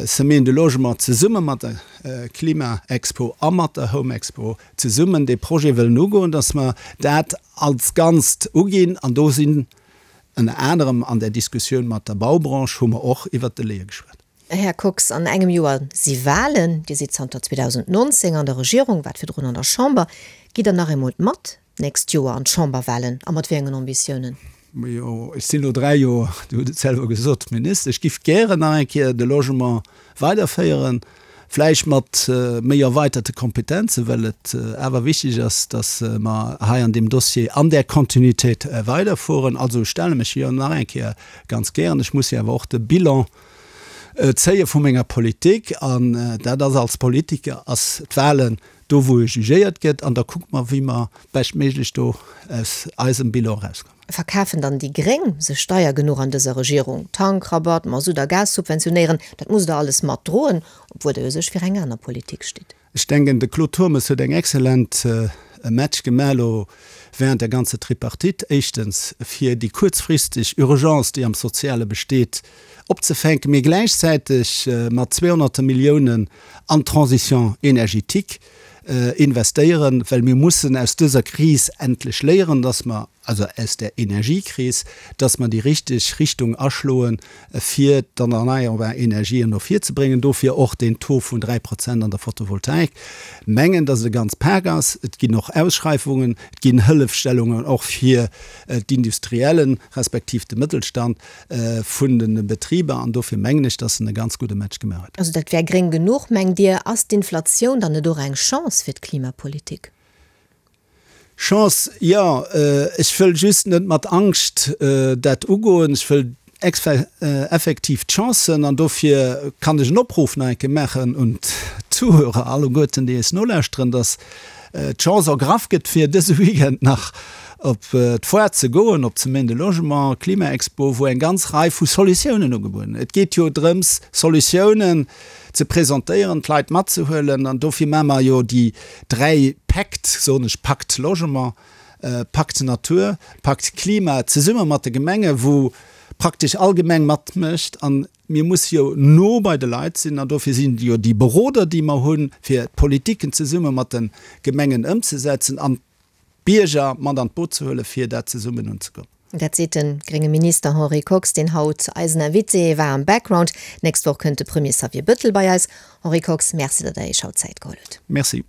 S4: Semaine du Logement zesumme mat der Klima-Expo a mat der Home-Expo zesummen dee Projet wëllen ugoen, dass mer dat als Ganzt uginn. An do sinn ënner anerem an där Diskussioun mat der Baubranche hu mer och iwwert d'Delaie geschwat.
S3: Här Kox, an engem Joer si Wahlen. Dir sidd zanter 2019 an der Regierung, waart virdrun an der Chamber. Gitt Der nach eemol mat d'nächst Joer an d'Chamberwahlen a mat wéi engen Ambitiounen?
S4: Majo, ech sinn elo 3 Joer, Dir hutt et selwer gesot, Minister. Ech giff gären nach eng Kéier de Logement weiderféieren, vläicht mat méi erweiterte Kompetenzen, well et awer wichteg ass, datt mer hei an deem Dossier an där Kontinuitéit weiderfueren. Also ech stelle mech jo nach eng Kéier ganz gären. Ech muss jo awer och de Bilan zéie vu menger Politik an dat ass als Politiker ass d'Wahlen do wou e jugéiert gëtt an da kucke mer wéi mer beschtméiglech do aus eisem Bilan erauskommen.
S3: Verkafen dann déi Gréng sech deier genuch an dëser Regierung? Tankrabatt, Masutt a Gas subventionéieren, dat musst der alles mat droen, obwuel der jo sech fir eng aner Politik stitt.
S4: Ech denken, de Claude Turmes huet eng excellent Match gemaach elo während der ganzer Tripartite. Éischtens, fir déi kuerzfristeg Urgence, déi am Soziale besteet, opzefänken, mee gläichzäiteg mat zweehonnerte Milliounen an d'Transition énergétique investéieren, well mir mussen aus dëser Kris endlech léieren, dass mer, also aus där Energiekris, dass mer déi richteg Richtung aschloen, fir d'erneierbar Energien no vir ze bréngen. Dofir och deen Taux vun 3 Prozent an der Photovoltaik. Mengen, dass et e ganz Pak ass. Et ginn och Ausschreifungen, et ginn Hëllefstellungen och fir d'Industriellen, respektiv de Mëttelstand vun de Betriber. An dofir mengen ech, dass en e ganz gudde Match gemaach huet.
S3: Also dat wär gréng genuch, mengt Dir? Ass d'Inflatioun dann net och eng Chance fir d'Klimapolitik?
S4: Chance, jo. Ech wëll just net mat Angscht dat ugoen. Ech wëll effektiv d'Chancen, an dofir kann ech en Opruff nach eng Kéier maachen un d'Zuhörer alleguerten, déi eis nolauschteren, dass d'Chance ergraff gëtt, fir dëse Weekend nach op d'Foire ze goen, op d'Semaine de Logement, Klimaexpo, wou eng ganz Rei vu Solutiounen ugebueden. Et geet jo drëms, Solutiounen ze presentéieren, d'Leit matzehuelen an dofir maache mer jo déi 3 Päkt, soen ech, Pakt Logement, Pakt Natur, Pakt Klima, zesumme mat de Gemengen, wou praktesch all Gemeng matmécht an mir musse jo no bei de Leit sinn an dofir sinn jo déi Beroder, déi mer hunn, fir d'Politiken zesumme mat de Gemengen ëmzesetzen an d'Bierger mat an d'Boot ze huelen, fir dat zesummen unzegoen.
S3: Dat seet de grénge Minister Henri Kox, deen haut eisen Invité war am Background. D'nächst Woch kënnt de Premier Xavier Bëttel bei eis. Henri Kox, Merci, datt Der Iech haut Zäit geholl hutt.
S4: Merci.